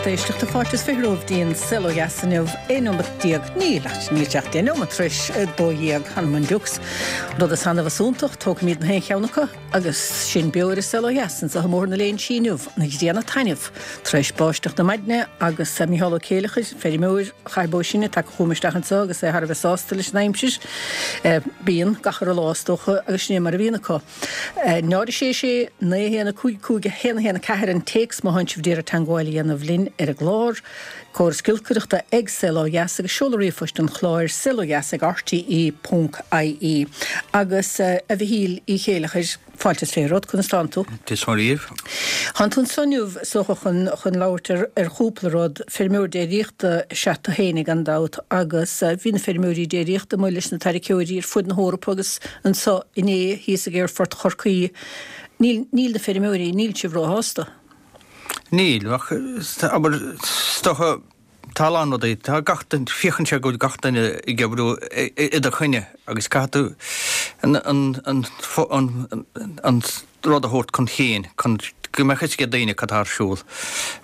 Lucht éisteachta, fáilte is fiche romhaibh dtí'n Saol Ó Dheas inniu, 11 neomat, níl ach níl sé ach 10 neomat tar éis 12, th'anam 'on diucs. Rud is annamh is iontach, tógfaimid na haon cheann acu agus sinn beo ar an Saol Ó Dheas anseo i mBóthar na Léinsí inniu, an ghrian ag taitneamh tar éis báisteach na maidne agus Micheál Ó Céileachair, feirmeoir Chathair Bó Sine, tagtha chugam isteach anseo agus é thar a bheith sásta leis an aimsir. Bíonn, gach uile lá is dócha agus sin é mar a bhíonn acu. 0 6 6 9 1 5 5 1 1 4 an téacs má thánn sibh d'iarraidh teangmháil a dhéanamh linn ar an gclár. Córas giolcaireachta ag Saol Ó Dheas agus seoladh ríomhphoist an chláir, saolodheas ag rte ponc ie. Agus a Mhichíl Uí Chéileachair, fáilte is fiche romhat, conas tánn tú? Dia is Muire dhaoibh. Thánn tú anso inniu, is dócha, chun chun labhairt ar ar chúpla rud. Feirmeoir déiríochta is ea tú fhéinig gan dabht agus bhí na feirmeoirí déiríochta amuigh leis na tarraiceoirí ar fud na hEorpa agus anso inné thíos ag Aerfort Chorcaí. Níl níl na feirmeoirí, níl sibh róshásta. Níl, ach abair, is dócha, tá a lán rudaí, tá gach duine, féachann sé go bhfuil gach duine ag oibriú i do choinne agus caithfidh tú an, an, an, an, an rud a thabhairt chun cinn chun go mbeadh fhios ag daoine cad tá ar siúl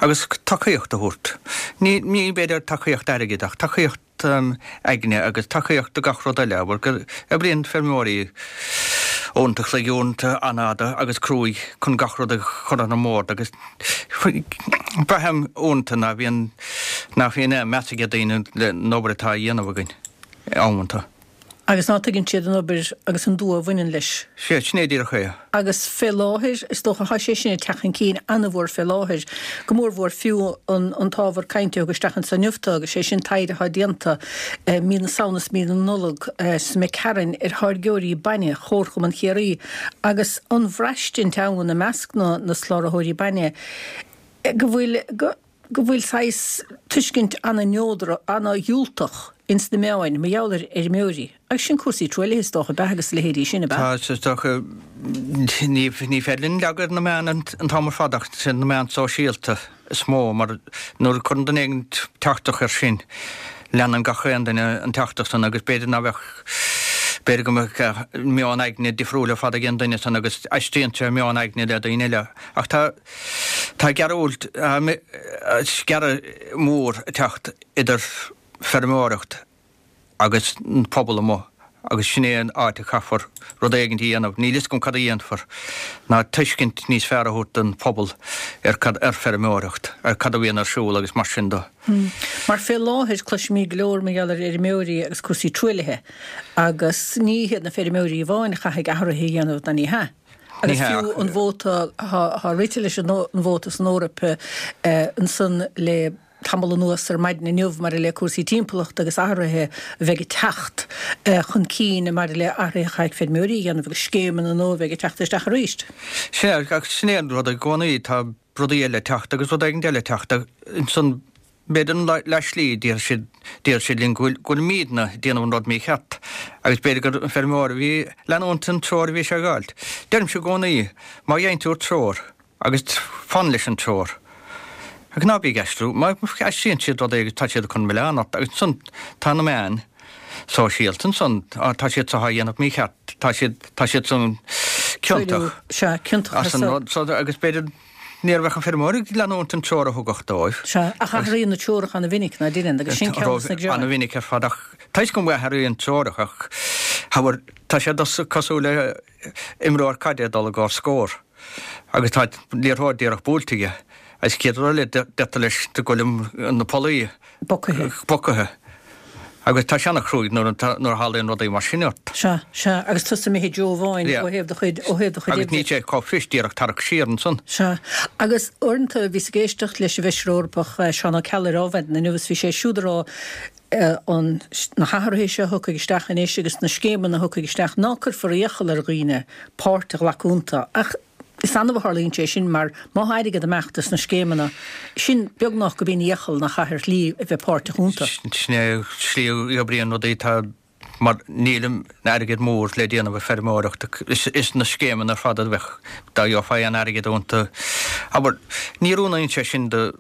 agus tacaíocht a thabhairt. Ní, ní b'fhéidir tacaíocht airgid ach tacaíocht aigne agus tacaíocht do gach rud eile, abair, go oibríonn feirmeoirí uaireanta an chloig, uaireanta an-fhada agus cruaidh chun gach rud a chur ar an mbord agus braithim uaireanta ná bhíonn, nach bhíonn aon meas ag daoine le an obair atá á dhéanamh againn amanta. Agus ná tuigeann siad an obair agus an dua a bhaineann leis. Sea, sin é díreach é. Agus fé láthair, is dócha, thá sé sin ag teacht chun cinn an-mhór fé láthair, go mórmhór fiú an an t-ábhar cainte a thug isteach anso inniu tú, agus sé sin taighde athá déanta mí na Samhna is mí na Nollag sa McCarron ar tháirgeoirí bainne Chomharchumann Chiarraí agus an bhraistint ann i measc na na soláthróirí bainne go bhfuil go go bhfuil saghas tuiscint ana-neodrach, ana-dhiúltach ins na meáin mar gheall ar fheirmeoirí. Agus sin cúrsaí truaillithe is dócha, ab ea, agus a leithéidí sin, ab ea? Tá, is dócha, ní, ní féidir linn leagadh ar na meáin an t-am ar fad ach sin na meáin sóisialta is mó mar nuair a cuireann duine éigin teachtaireacht air sin, leanann gach aon duine an teachtaireacht san agus b'fhéidir ná bheadh, b'fhéidir go mbeadh meon aigne difriúil ar fad ag an duine san agus aistríonn sé meon aigne le daoine eile. Ach tá. Tá gearradh, sciarradh mór ag teacht idir feirmeoireacht agus an pobal amuigh agus sin é an áit a chaithfear rud éigin a dhéanamh, níl fhios agam cad a dhéanfar, ná tuiscint níos fearr a thabhairt don phobal ar cad, ar feirmeoireacht, ar cad a bhíonn ar siúl agus mar sin de. Mar fé láthair cloisimid go leor mar gheall ar fheirmeoirí agus cúrsaí truaillithe agus ní hiad na feirmeoirí amháin a chaithfidh athruithe a dhéanamh ná ní hea. Agus fiú an vóta, thá rite leis an vóta san Eoraip ansan le tamall anuas ar maidin inniu maidir le cúrsaí timpeallachta agus athruithe a bheidh ag teacht chun cinn maidir le athruithe a chaithfidh feirmeoirí a dhéanamh agus scéimeanna nua a bheidh ag teacht isteach arís. Sea, ach sin é an rud i gcónaí, tá rudaí eile ag teacht agus rud éigin eile ag teacht ansan B'fhéidir an leath-slí, déarfaidh siad, déarfaidh siad linn go bhfuil, go bhfuilimídne ag déanamh an rud mícheart agus b'fhéidir gur an feirmeoir a bhí ag leanúint an treoir a bhí sé ag fháilt. Deirimse i gcónaí, má gheibheann tú treoir agus fan leis an treoir agus ná bí ag aistriú, má aistríonn siad rud éigin tá siad chun milleán ort agus ansan tá na meáin sóisialta ansan, tá siad seo á dhéanamh mícheart, tá siad, tá siad san ciontach Sea, ciontach as an rud so agus b'fhéidir Ní bheadh an feirmeoir ag leanúint an treoir a thugadh dóibh. Sea, ach athraíonn na treoracha ana-mhinic, ná deineann, agus sin ceann des na greáin. Ana-mhinic ar fad, ach tá fhios agam go athraíonn treoracha, ach abair, tá sé cosúil le imreoir caide ag dul i gcomhair scór agus tá liathróid díreach buailte aige agus chéad rud eile deirtear leis go bhfuil na pollaí Bocaithe. Bocaithe. Agus tá sé ana-chruaidh nuair a tharlaíonn rudaí mar sin ort. Sea, sea, agus tusa imithe i dtreo amháin ó thaobh do chuid, ó thaobh do chuid oibre. Agus níl sé chomh fuirist díreach tarrac siar ansan. Sea. Agus uaireanta bhíos ag éisteacht leis an bhFeisire Eorpach Seán Ó Ceallaigh ar Adhmhaidin inniu agus bhí sé siúd ag rá an, na hathruithe seo a thiocfaidh isteach anois agus na scéimeanna a thiocfaidh isteach ná cuirfear iachall ar dhaoine páirt a ghlacadh iontu ach Is annamh a tharlaíonn sé sin mar má thá airgead ag imeacht as na scéimeanna sin beagnach gurb in iachall nach chaithfear slí a bheith páirteach iontu. Sin é slí a oibríonn rudaí tá mar níl an airgead mór le déanamh ag feirmeoireacht is na scéimeanna ar fad a bheadh dá gheofá aon airgead iontu. Abair, ní oiriúnaíonn sé sin do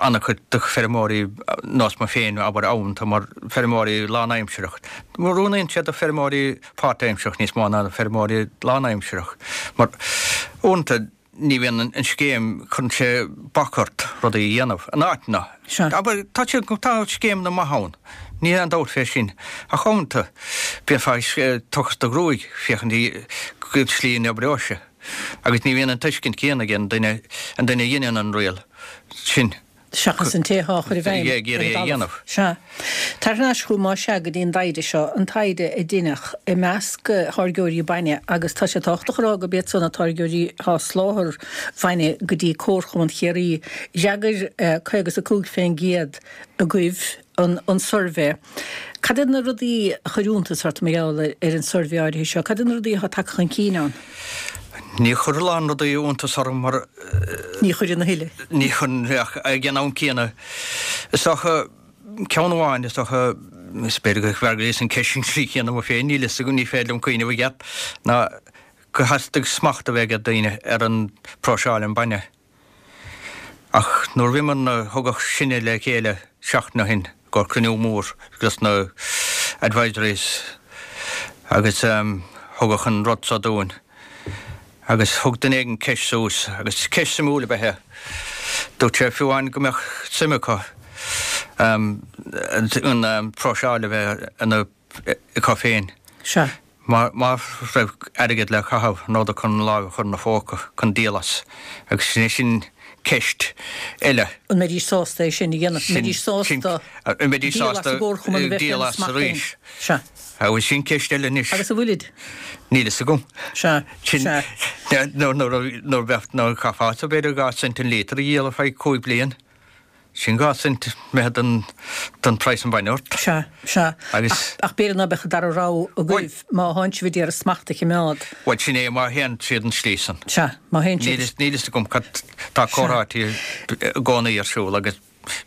an-chuid de feirmeoirí nós mé féin abair amanta mar feirmeoirí lánaimsireach. Oiriúnaíonn sé do feirmeoirí páirtaimsearach níos mó ná feirmeoirí lánaimsearach mar uaireanta. ní bhíonn an scéim, cuireann sé bac ort rudaí a dhéanamh in áiteanna. Sea. Abair, tá sé, tá scéimeanna maithe ann, níl aon dabht fé sin, ach uaireanta bheifeá ag tochas do ghruaig féachaint cén tslí a n-oibreoidh sé. Agus ní bhíonn an tuiscint céanna ag an duine, an duine a dheineann an riail sin. Seachas an té atá á chur i bhfeidhm ar an talamh. Sea. Tar thar n-ais chugam más ea go dtí an dtaighde seo, an taighde a deineadh i measc tháirgeoirí bainne agus tá sé tábhachtach a rá gurb iad san na táirgeoirí atá ag soláthar bainne go dtí Comharchumann Chiarraí. D'fhreagair 55 fén gcéad agaibh an suirbhé. Cad iad na rudaí a chuir iontas ort mar gheall ar an suirbhé áirithe seo? Cad iad na rudaí atá tagtha chun cinn ann? Ní chuir a lán rudaí iontas orm mar. Ní chuireann a thuilleadh. Ní chuireann ach ag an am céanna is dócha ceann amháin is dócha is b'fhéidir go bhfreagraíos an ceist sin trí chéanna mo féin níl fhios agam ní féidir liom cuimhneamh i gceart ná gur theastaigh smacht a bheith ag daoine ar an próiseáil an bainne. Ach nuair a bhíomar, thugadh sinne le chéile seachtain ó shin i gcomhair cruinniú mór dos na advisories agus thugadh an rud so dúinn agus thug duine éigin ceist suas agus ceist suimiúil ab ea é. Dúirt sé fiú amháin go mbeadh suim acu an próiseáil a bheith ina acu féin. Sea. Má raibh airgead le caitheamh, an rabhadar chun lámh a chur ina phóca chun díol as? Agus sin é sin ceist eile. An mbeidís sásta é sin a dhéanamh? An mbeidís sásta díol as an gcomharchumann a bheith féina smacht féin? Sea. Agus sin ceist eile anois. Agus an bhfuilid? Níl fhios agam. Sea. Sea. Nuair a bheadh, nuair a chaithfeá, b'fhéidir 2 cent an líotar a dhíol ar feadh 5 bliain. Sin 2 cent imithe den, den praghas an bainne ort. Sea, sea. Agus. Ach, ach b'fhéidir ná beadh an dara rogha agaibh má thánn sibh a d'iarraidh smacht a chimeád. Bhuel, sin é, má théann siad an slí san. Sea, má théann siad. Níl, níl fhios agam cad, tá comhráití i gcónaí ar siúl agus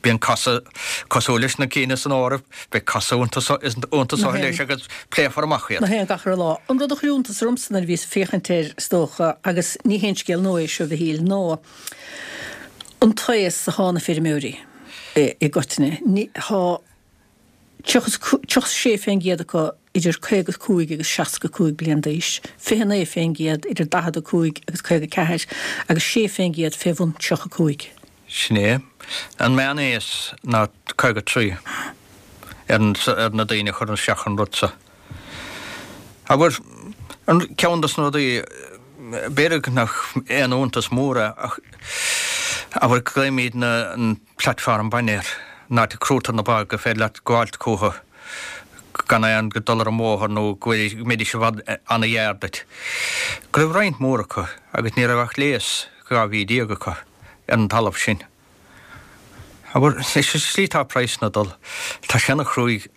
bíonn casadh cosúil leis na cinn san Eoraip, beidh casadh iontu so, iontu so leis agus pléifear amach iad. Nach é an gach re lá. An rud a chuir iontas ormsa nuair a bhíos ag féachaint air, is dócha, agus ní haon scéal nua é seo, a Mhichíl, ná An t-aos athá na feirmeoirí i gcoitinne, thá 36 fén gcéad acu idir 55 agus 65 bliain d'aois, 29 fén gcéad idir 45 agus 54 agus 6 fén gcéad fé bhun 35. Sin é. An meán-aos ná 53 ar na daoine a chuireann isteach an rud so. Abair, ceann dos na rudaí, b'fhéidir nach aon iontas mór é ach abair glaoimidne an platform bainne air, an áit a crúitear na ba gur féidir leat gabháilt chucu gan aon dul ar an mbóthar nó go mbeidís i bhfad ana-ghearr duit. Go raibh roinnt mhór acu agus ní raibh ach léas 12 mhí acu ar an talamh sin. Abair, leis an slí atá praghsanna ag dul, tá sé ana chruaidh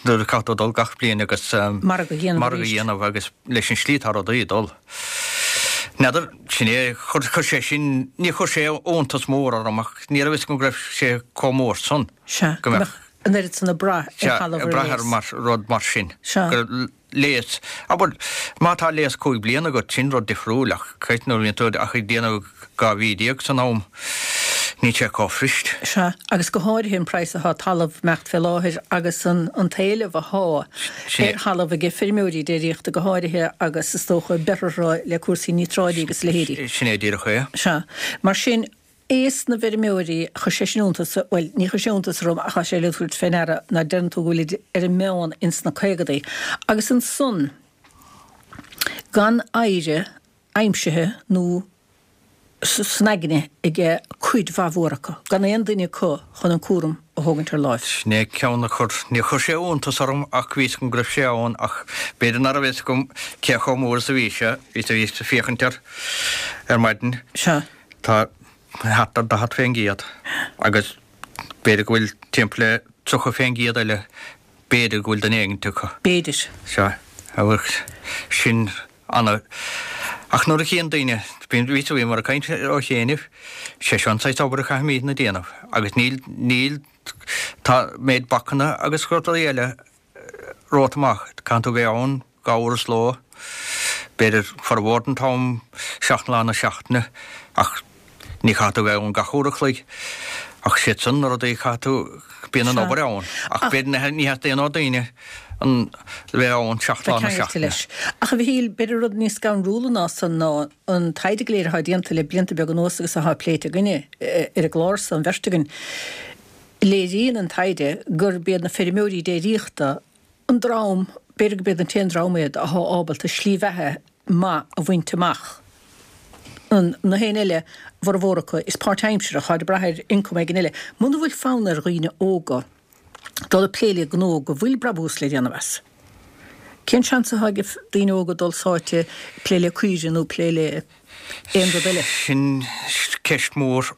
nuair a caithfidh tú dul gach bliain agus margadh a dhéanamh margadh a dhéanamh agus leis an slí atá rudaí ag dul. N'fheadar, sin é, chuir, chuir sé sin, ní chuir sé iontas mór orm ach ní raibh fhios agam go raibh sé chomh mór san. Sea, go mbeadh an oiread san ag brath ar thalamh ar léas. Ag brath ar mar, rud mar sin. Sea. Go léas. Abair, má tá léas 5 bliana agat, sin rud difriúil, ach creidim nuair a bhíonn tú ach ag déanamh 12 mhí san am, níl sé chomh fuirist. Sea, agus go háirithe an praghas athá talamh imeacht fé láthair agus an an t-éileamh athá ar thalamh aige feirmeoirí déiríochta go háirithe agus is dócha beirthe le cúrsaí níotráidí agus a leithéidí. Sin é díreach é. Sea. Mar sin, Aos na bhfeirmeoirí, chuir sé sin iontas, bhuel, ní chuir sé iontas orm ach tá sé le tabhairt fé ndeara ná deireann tú go bhfuilid ar an meán ins na caogadaí. Agus ansan, gan oidhre aimsithe nó san aigne aige cuid mhaith mhór acu, gan aon duine acu chun an cúram a thógaint ar láimh. Sin é ceann a chuir, níor chuir sé iontas orm ach bhí fhios agam go raibh sé ann ach b'fhéidir nach raibh fhios agam cé chomh mór is a bhí sé, bhíos ag féachaint air ar maidin. Sea. Tá thart ar 40% agus b'fhéidir go bhfuil timpeall le 30% eile, b'fhéidir go bhfuil duine éigint acu. B'fhéidir. Sea, agus sin ana. Ach nuair a chíonn daoine, bíonn, bhí, bhíomar ag caint ó chianaibh, sé seo an saghas obair a chaithfimidne déanamh agus níl, níl, tá méid bacanna agus rudaí eile romhat amach. Caithfidh tú bheith ann 2 uair sa ló, b'fhéidir formhór den t-am, 7 lá na seachtaine, ach ní chaithfidh tú bheith ann gach uair a chloig. Ach siad san na rudaí a chaithfidh tú, bíonn an obair ann. Ach b'fhéidir ní theastaíonn ó daoine an bheith ann 7 lá na seachtaine. Ach a Mhichíl, b'fhéidir rud níos scanrúla ná san ná an taighde go léir atá déanta le blianta beaga anuas agus atá pléite againne ar an gclár so, an bheirt againn. Léiríonn an taighde gurb iad na feirmeoirí déiríochta an dream, b'fhéidir gurb iad an t-aon dream iad atá ábalta slí bheatha maith a bhaint amach. Na héinne eile, a bhformhór acu, is páirtaimseartha, táid ag brath ar ioncam éigin eile. Muna bhfuil fonn ar dhaoine óga dul ag plé le gnó go bhfuil brabús le déanamh as, cén seans atá ag daoine óga dul sáite plé le caoirigh nó plé le aon rud eile? Sin ceist mhór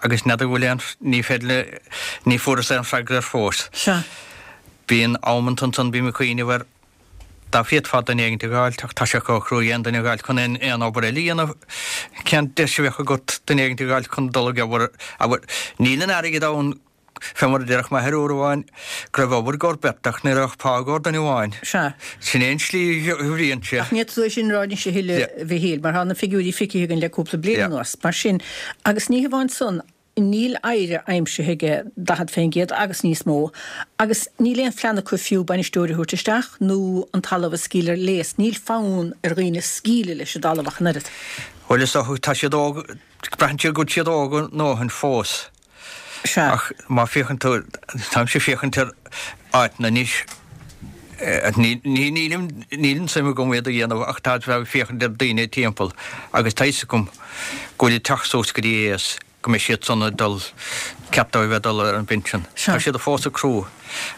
Agus n'fheadar bhfuil aon, ní féidir le, ní fuaireas aon freagra air fós. Sea. Bíonn amanta ansan, bím ag cuimhneamh ar, dá bhféadfá duine éigint a dh'fháilt, ach tá sé chomh cruaidh aon duine a dh'fháilt chun aon, aon obair eile a dhéanamh. Cén deis a bheadh agat duine éigint a dh'fháilt chun dul ag obair, abair, níl an airgead ann Fé mar a déarfadh m'athair uair amháin go raibh obair i gcomhair beirt ach ní raibh ach pá i gcomhair duine amháin. Sea. Sin é an tslí a bhíonn sé. Ach ní fhéadfá tú é sin a rá anois a thuilleadh, a Mhichíl, mar tá na figiúirí feicthe againn le cúpla bliain anuas. Mar sin, agus ní hamháin san, níl oidhre aimsithe aige 40% agus níos mó, agus níl aon phlean acu fiú bainisteoir a thabhairt isteach nó an talamh a scaoileadh ar léas. Níl fonn ar dhaoine scaoileadh leis an dtalamh ach an oiread. Bhuel, is dócha, tá siad óg, braitheann siad go bhfuil siad óg a ndóthain fós. Sea. Ach má féachann tú, táimse ag féachaint ar áiteanna anois, níl níl an suim agam iad a dhéanamh ach tá ag féachaint ar daoine timpeall agus tá fhios agam go bhfuil ag teacht suas go dtí aos go mbeidh siad san ag dul, ceart dóibh bheith ag dul ar an bpinsean. Sea. Tá siad fós ag crú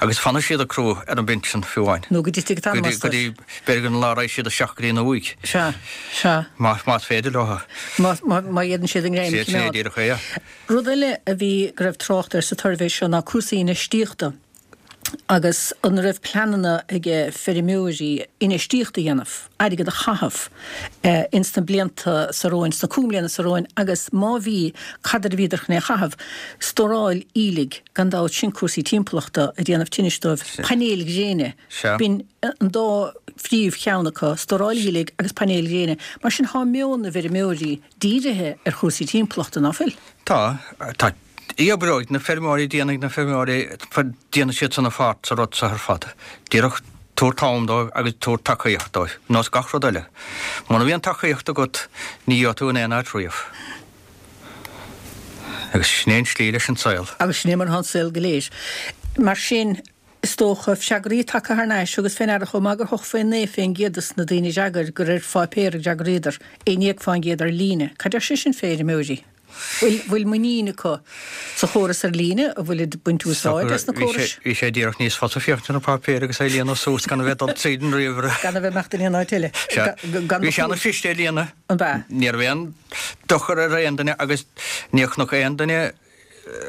agus fanfaidh siad ag crú ar an bpinsean fiú amháin. Nó go dtitfidh an t-anam astu. Go dtí, b'fhéidir an lá a raghaidh siad isteach go dtí an uaigh. Sea. Sea. Más féidir leo. Má fhéadann siad a ngreim a Sin é choimeád. díreach é. Rud eile a bhí, go raibh trácht air sa tsuirbhé seo ná cúrsaí infheistíochta agus an raibh pleananna ag feirmeoirí infheistíocht a dhéanamh, airgead a chaitheamh ins na blianta seo romhainn, sna cúig mbliana seo romhainn agus má bhí, cad air a bhíodar chun é a chaitheamh? Stóráil aoiligh, gan dabht, sin cúrsaí timpeallachta ag déanamh tinnis dóibh, painéil ghréine, b'in an dá phríomh cheann acu, stóráil aoiligh agus painéil ghréine. Mar sin thá meon na bhfeirmeoirí dírithe ar chúrsaí timpeallachta, ná fuil? Tá. Tá. Oibreoidh na feirmeoirí, déanfaidh na feirmeoirí, déanfaidh siad san a pháirt sa rud seo ar fad. Díreach tabhair t-am dóibh agus tabhair tacaíocht dóibh, nós gach rud eile. Muna mbíonn tacaíocht agat, ní gheobhaidh tú in aon áit riamh. Agus sin é an tslí leis an saol. Agus sin é mar atá an saol go léir. Mar sin, Is dócha, freagraí tagtha thar n-ais thugas fé ndeara chomh maith gur 89% des na daoine a d'fhreagair gur ar pháipéar a d'fhreagraíodar, 11% ar líne. Cad deir sé sin fé fheirmeoirí? Bhfuil, bhfuil muinín acu sa chóras ar líne? An bhfuilid ag baint úsáid as na córais? Bhí sé díreach níos fusa féachaint ar an bpáipéar agus é a líonadh suas gan a bheith ag dul tríd an ríomhaire. Gan a bheith ag imeacht in aon áit eile. Sea. Bhí sé ana-chliste a líonadh. An b'ea? Ní raibh aon dochar ar aon duine agus níor chonac aon duine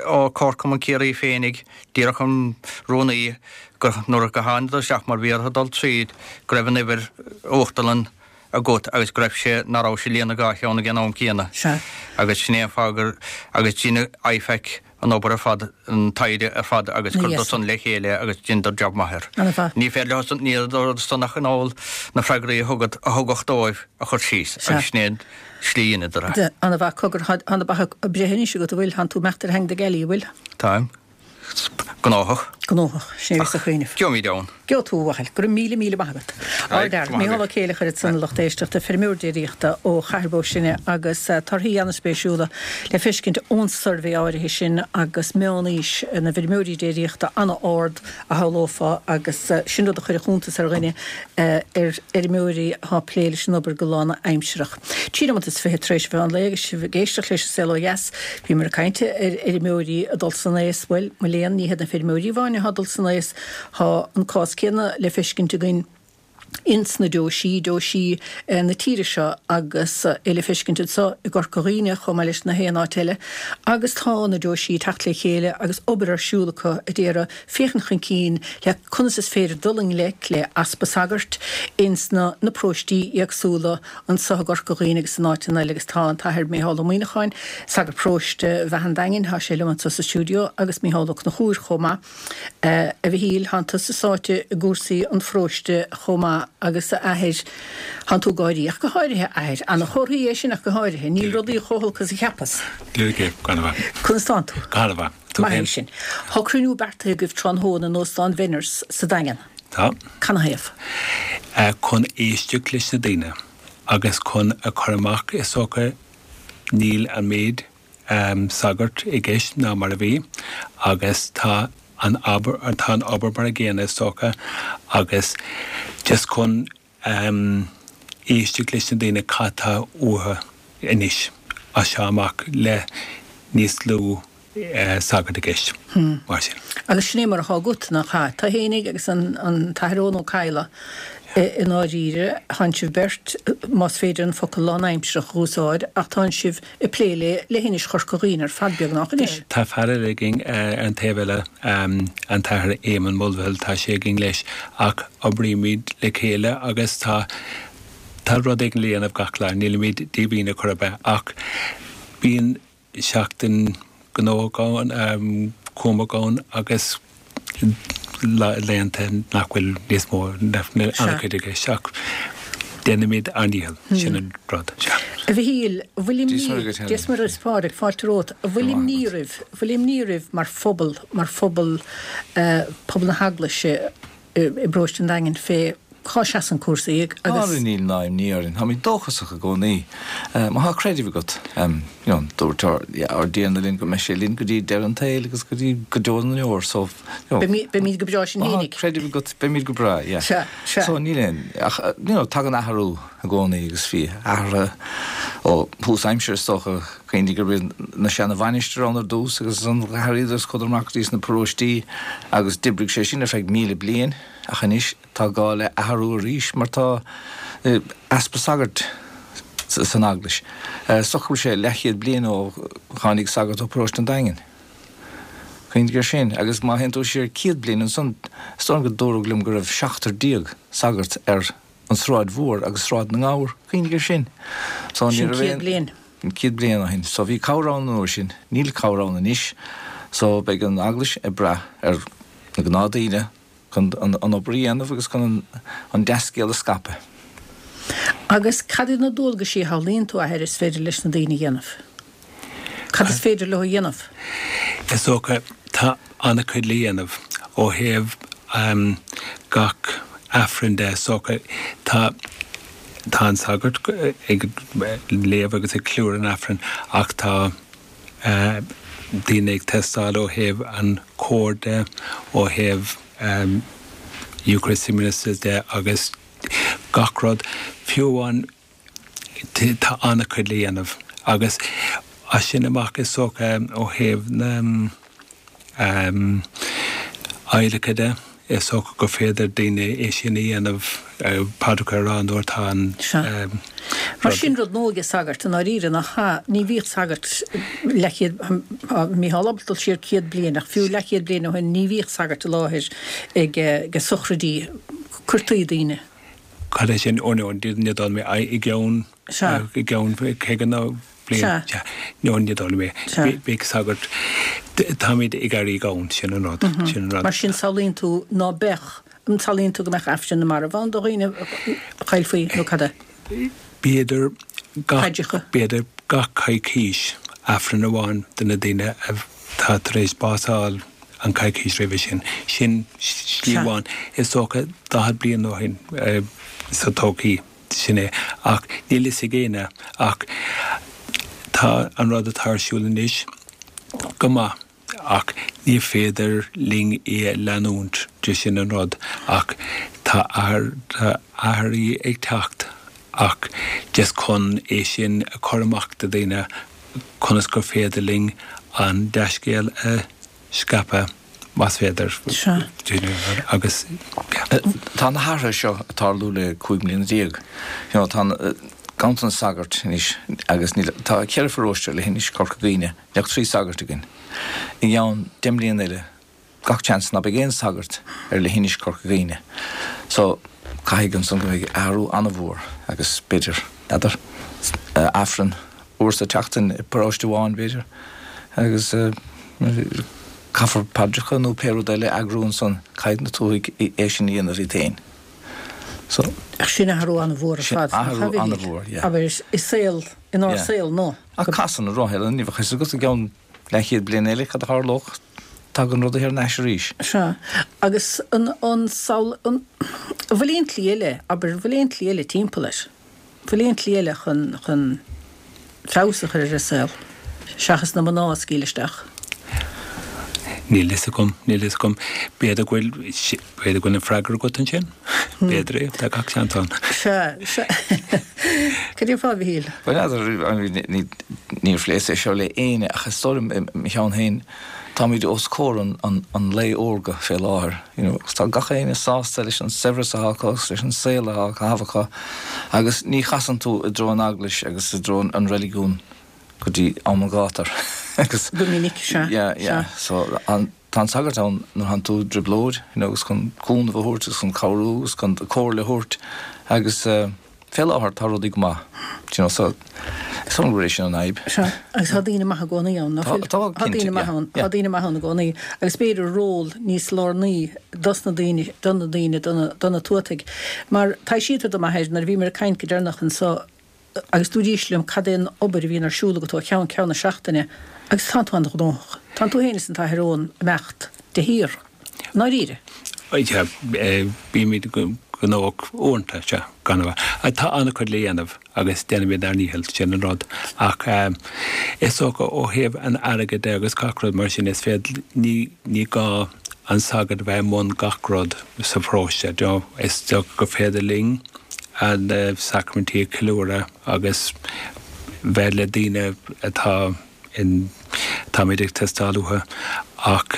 ó Comharchumann Ciarraí féinig, díreach an rúnaí, gur nuair a thángadar isteach mar bhí orthu dul tríd, go raibh an uimhir uachtarlann agat agus go raibh sé, ná raibh sé ag líonadh dhá cheann ag an am céanna. Sea. Agus sin é an fáth gur, agus dhein IFAC an obair ar fad, an taighde ar fad agus chuireadar san le chéile agus dheineadar jab maith air. Ana-mhaith. Ní féidir leo san, níl san ach in ann na freagraí a thugad, a thugadh dóibh a chur síos agus sin é an slí a dheineadar é. Ana-mhaith. Cogar, tá na beacha ag breith anois agat, an bhfuil? Tánn tú ag imeacht ar theanga na gealaí, an bhfuil? Táim. Gnóthach. Gnóthach. Sin é a bhíos ag cuimhneamh. Gheobhaimid ann. Gheobhaidh tú, a bhuachaill. Go raibh míle míle maith agat. Ardfhear. Mícheál Ó Céileachair ansan, a lucht éisteachta, feirmeoir déiríochta ó Chathair Bó Sine agus torthaí an-spéisiúla le feiscint ón suirbhé áirithe sin agus meán-aois na bhfeirmeoirí déiríochta an-ard a shamhlófá agus sin rud a chuirfeadh iontas ar dhuine ar fheirmeoirí atá ag plé leis an obair go lánaimsearach. 23 nóimeat tar éis an mheán lae agus sibh ag éisteacht leis an Saol Ó Dheas. Bhíomar ag caint ar fheirmeoirí ag dul san aos. Bhuel, mo léan, ní hiad na feirmeoirí amháin atá ag dul san aos. Tá an cás céanna le feiscint againn ins na deoisí, deoisí na tíre seo agus é le feiscint anseo i gCorca Dhuibhne chomh maith leis na haon áit eile. Agus tá na deoisí ag teacht le chéile agus obair ar siúl acu a d'iarraidh féachaint chun cinn le conas is féidir dul i ngleic le easpa sagart ins na na paróistí éagsúla anseo i gCorca Dhuibhne agus in áiteanna eile agus tá an tAthair Micheál Ó Muíneacháin, sagart paróiste Bheatha an Daingin, tá sé liom anseo sa stiúideo agus Micheál Ó Conchúir chomh maith. A Mhichíl, tánn tusa sáite i gcúrsaí an pharóiste chomh maith. maith agus a Athair, thánn tú ag gáirí, ach go háirithe, a Athair. Ana-chomhartha é sin ach go háirithe. Níl rudaí chomh holc is a cheapas. Dia duit, go han-mhaith. Conas tánn tú? Go han-mhaith. Tú Maith é sin. Tá cruinniú beartaithe agaibh tráthnóna in Óstán Bhenners sa Daingean. Tá. Canathaobh? Chun éisteacht leis na daoine agus chun a chur amach is dócha níl an méid sagart i gceist ná mar a bhí agus tá an obair, tá an obair mar a gcéanna is dócha agus just chun éisteacht leis na daoine cad tá uathu anois as seo amach le níos lú sagart i gceist mar sin. Agus sin é mar atá agat, nach ea? Tú fhéinig agus an tAthair Eoin Ó Cadhla, i ndáiríre, tánn sibh beirt, más féidir an focal lánaimsearach a úsáid, ach tánn sibh ag plé le leithinis Chorca Dhuibhne ar fad beagnach anois. Tá fear eile againn ar an taobh eile, an tAthair Éamonn Mulvihill, tá sé againn leis, ach oibrímid le chéile agus tá tá rud éigin le dhéanamh gach lá, nílimid díomhaoin ar chor ar bith, ach bíonn seachtain gnóthach ann, cúramach ann agus laethanta nach bhfuil níos mó, nach bhfuil an-chuid i gceist ach déanaimid ár ndícheall, sin an rud. Sea. A Mhichíl, an bhfuil imní, Dia is Muire is Pádraig, fáilte romhat, an bhfuil imní oraibh, an bhfuil imní oraibh mar phobal, mar phobal, pobal na hEaglaise i bparóiste an Daingin fé cá seasann cúrsaí agus. Ara níl ná imní orainn, táimid dóchasach i gcónaí. Má tá creideamh agat, you know, dúirt ár dTiarna linn go mbeidh sé linn go dtí deireadh an tsaoil agus go dtí go deo na ndeor, so, you know. Beimid go breá sinn Má tá creideamh agat, beimid go breá, yeah. Sea, sea. So níl aon, ach, you know, tagann athrú i gcónaí agus bhí athruithe ó thús aimsire is dócha, cuimhnigh gurb iad na seana mhainistir ann ar dtús agus ansan d'athraíodar is chuadar amach go dtí sna paróistí agus d'oibrigh sé sin ar feadh 1,000 bliain ach anois, Tá gá le athrú arís mar tá easpa sagart san Eaglais. Is dócha go bhfuil sé leathchéad bliain ó tháinig sagart ó Paróiste an Daingin. Cuimhnigh air sin. Agus má théann tú siar 100 bliain ansan, is dóigh liom go dúradh liom go raibh seachtar déag sagart ar an Sráid Mhór agus Sráid na nGabhar. Cuimhnigh air sin. So ní raibh aon. Sin 100 bliain. 100 bliain ó shin. So bhí cabhair ann an uair sin. Níl cabhair ann anois. So beidh an Eaglais ag brath ar na gnáthdaoine chun an obair a dhéanamh agus chun an dea-scéal a scaipeadh. Agus cad iad na dualgaisí a shamhlaíonn tú, a Athair, is féidir leis na daoine a dhéanamh? Cad is féidir leo a dhéanamh? Is dócha, tá an-chuid le dhéanamh ó thaobh gach Aifreann de. Is dócha, tá tá an sagart ag léamh agus ag ceiliúradh an Aifrinn ach tá daoine ag teastáil ó thaobh an chóir de, ó thaobh Eucharistic Ministers de agus gach rud. Fiú amháin tá an-chuid le dhéanamh agus as sin amach is dócha ó thaobh na adhlactha de, is dócha gur féidir daoine é sin a dhéanamh, paidreacha a rá nuair atá an Sea. Mar sin rud nua aige sagart i ndáiríre, nach ea? Ní bhíodh sagart leathchéad, tá Mícheál ábalta dul siar 100 bliain, ach fiú leathchéad bliain ó shin ní bhíodh sagart i láthair ag sochraidí, cuirtí daoine. Cad é sin? Ó no, ní dóigh liom é. I gceann, i gceann 50 nó bliain. Sea. No, ní dóigh liom é. Sea. Bheadh sagart, táimid ag éirí gann, sin an rud, sin an rud. Mar sin samhlaíonn tú ná beadh, an samhlaíonn tú go mbeadh Aifreann na Marbh ann do dhaoine a chaillfí nó cad é? B'fhéidir gach, b'fhéidir gach coicís Aifreann amháin do na daoine atá tar éis bás a fháil. an coicís roimhe sin. Sin slí amháin. Is dócha 40 bliain ó shin sa todhchaí, sin é. Ach níl fhios ag éinne. Ach tá an rud atá ar siúl anois go maith ach ní féidir linn é a leanúint de sin an rud. Ach tá athruithe ag teacht ach just chun é sin a chur amach do dhaoine conas gur féidir linn an dea-scéal a scaipeadh, más féidir. Sea. Agus, yeah. Tá na hathruithe seo ag tarlú le 15 mbliana. You know, tá ganntanas sagart anois agus níl, tá ceithre pharóiste ar leithinis Chorca Dhuibhne, níl ach 3 sagart againn. I gceann 10 mbliana eile, gach seans ná beidh aon sagart ar leithinis Chorca Dhuibhne. So, caithfidh ansan go mbeidh athrú an-mhór agus b'fhéidir, n'fheadar, Aifreann uair sa tseachtain i bparóiste amháin b'fhéidir agus caithfear paidreacha nó pé rud eile a eagrú ansan, caithfidh na tuathaigh é sin a dhéanamh iad féin. So. Ach sin athrú an-mhór ar Sin fad, nach athrú ea, a Mhichíl? an-mhór, yeah. Abair, i saol, inár Yeah. saol nua. Ach casann an roth eile, ní bheadh fhios agat i gceann leathchéad bliain eile cad a tharlódh, tagann rudaí thar n-ais arís. Sea. Agus an, an samhail, an, an bhfuil aon tslí eile, abair, an bhfuil aon tslí eile timpeall air? Bhfuil aon tslí eile chun, chun feabhas a chur ar an saol, seachas na mná a scaoileadh isteach? Níl fhios agam, níl fhios agam. B'fhéidir go bhfuil, b'fhéidir go bhfuil an freagra agat ansin? B'fhéidir é, tá gach seans ann. Sea, sea. Cad é fá, a Mhichíl? Bhuel, n'fheadar, ní, níor phléas é seo le éinne ach is dóigh liom i mo cheann féin, Táimid os comhair an lae órga fé láthair, you know, agus tá gach éinne sásta leis an saibhreas atá acu agus leis an saol atá á chaitheamh acu agus ní chasann tú i dtreo an eaglais agus i dtreo an reiligiún go dtí am an ghátair agus Go minic, sea, yeah, yeah, sea. so an, tá an sagart ann nuair a thánn tú i dtrioblóid, you know, agus chun cúnamh a thabhairt agus chun cabhrú agus chun comhairle a thabhairt agus eh, Fé láthair tá rudaí go maith, do you know, so is dóigh liom gurb é sin an fhadhb. Sea, agus tá daoine maithe i gcónaí ann, ná fuil? Tá, Tá cinnte, daoine maithe yeah, ann, tá yeah. daoine maithe ann i gcónaí, agus b'fhéidir ról níos lárnaí dos na daoine, do na daoine, do na, do na tuataigh. Mar taibhsítear dom, a Athair, nuair a bhíomar ag caint go deireanach anso, agus dúraís liom cad é an obair a bhíonn ar siúl agat ó cheann ceann na seachtaine, agus tánn tú an-ghnóthach. Tánn tú féin is an tAthair Eoin ag imeacht de shíor. I ndáiríre. Sea, bímid gnóthach uaireanta, sea, gan a bheith. Tá an-chuid le dhéanamh agus déanaimid ár ndícheall, sin an rud. Ach is dócha ó thaobh an airgid de agus gach rud mar sin, is féidir, ní, ní gá an sagart a bheith i mbun gach rud sa pharóiste. Do you know, is dócha gur féidir linn na sacraimintí a cheiliúradh agus bheith le daoine atá, in táimid ag teastáil uathu ach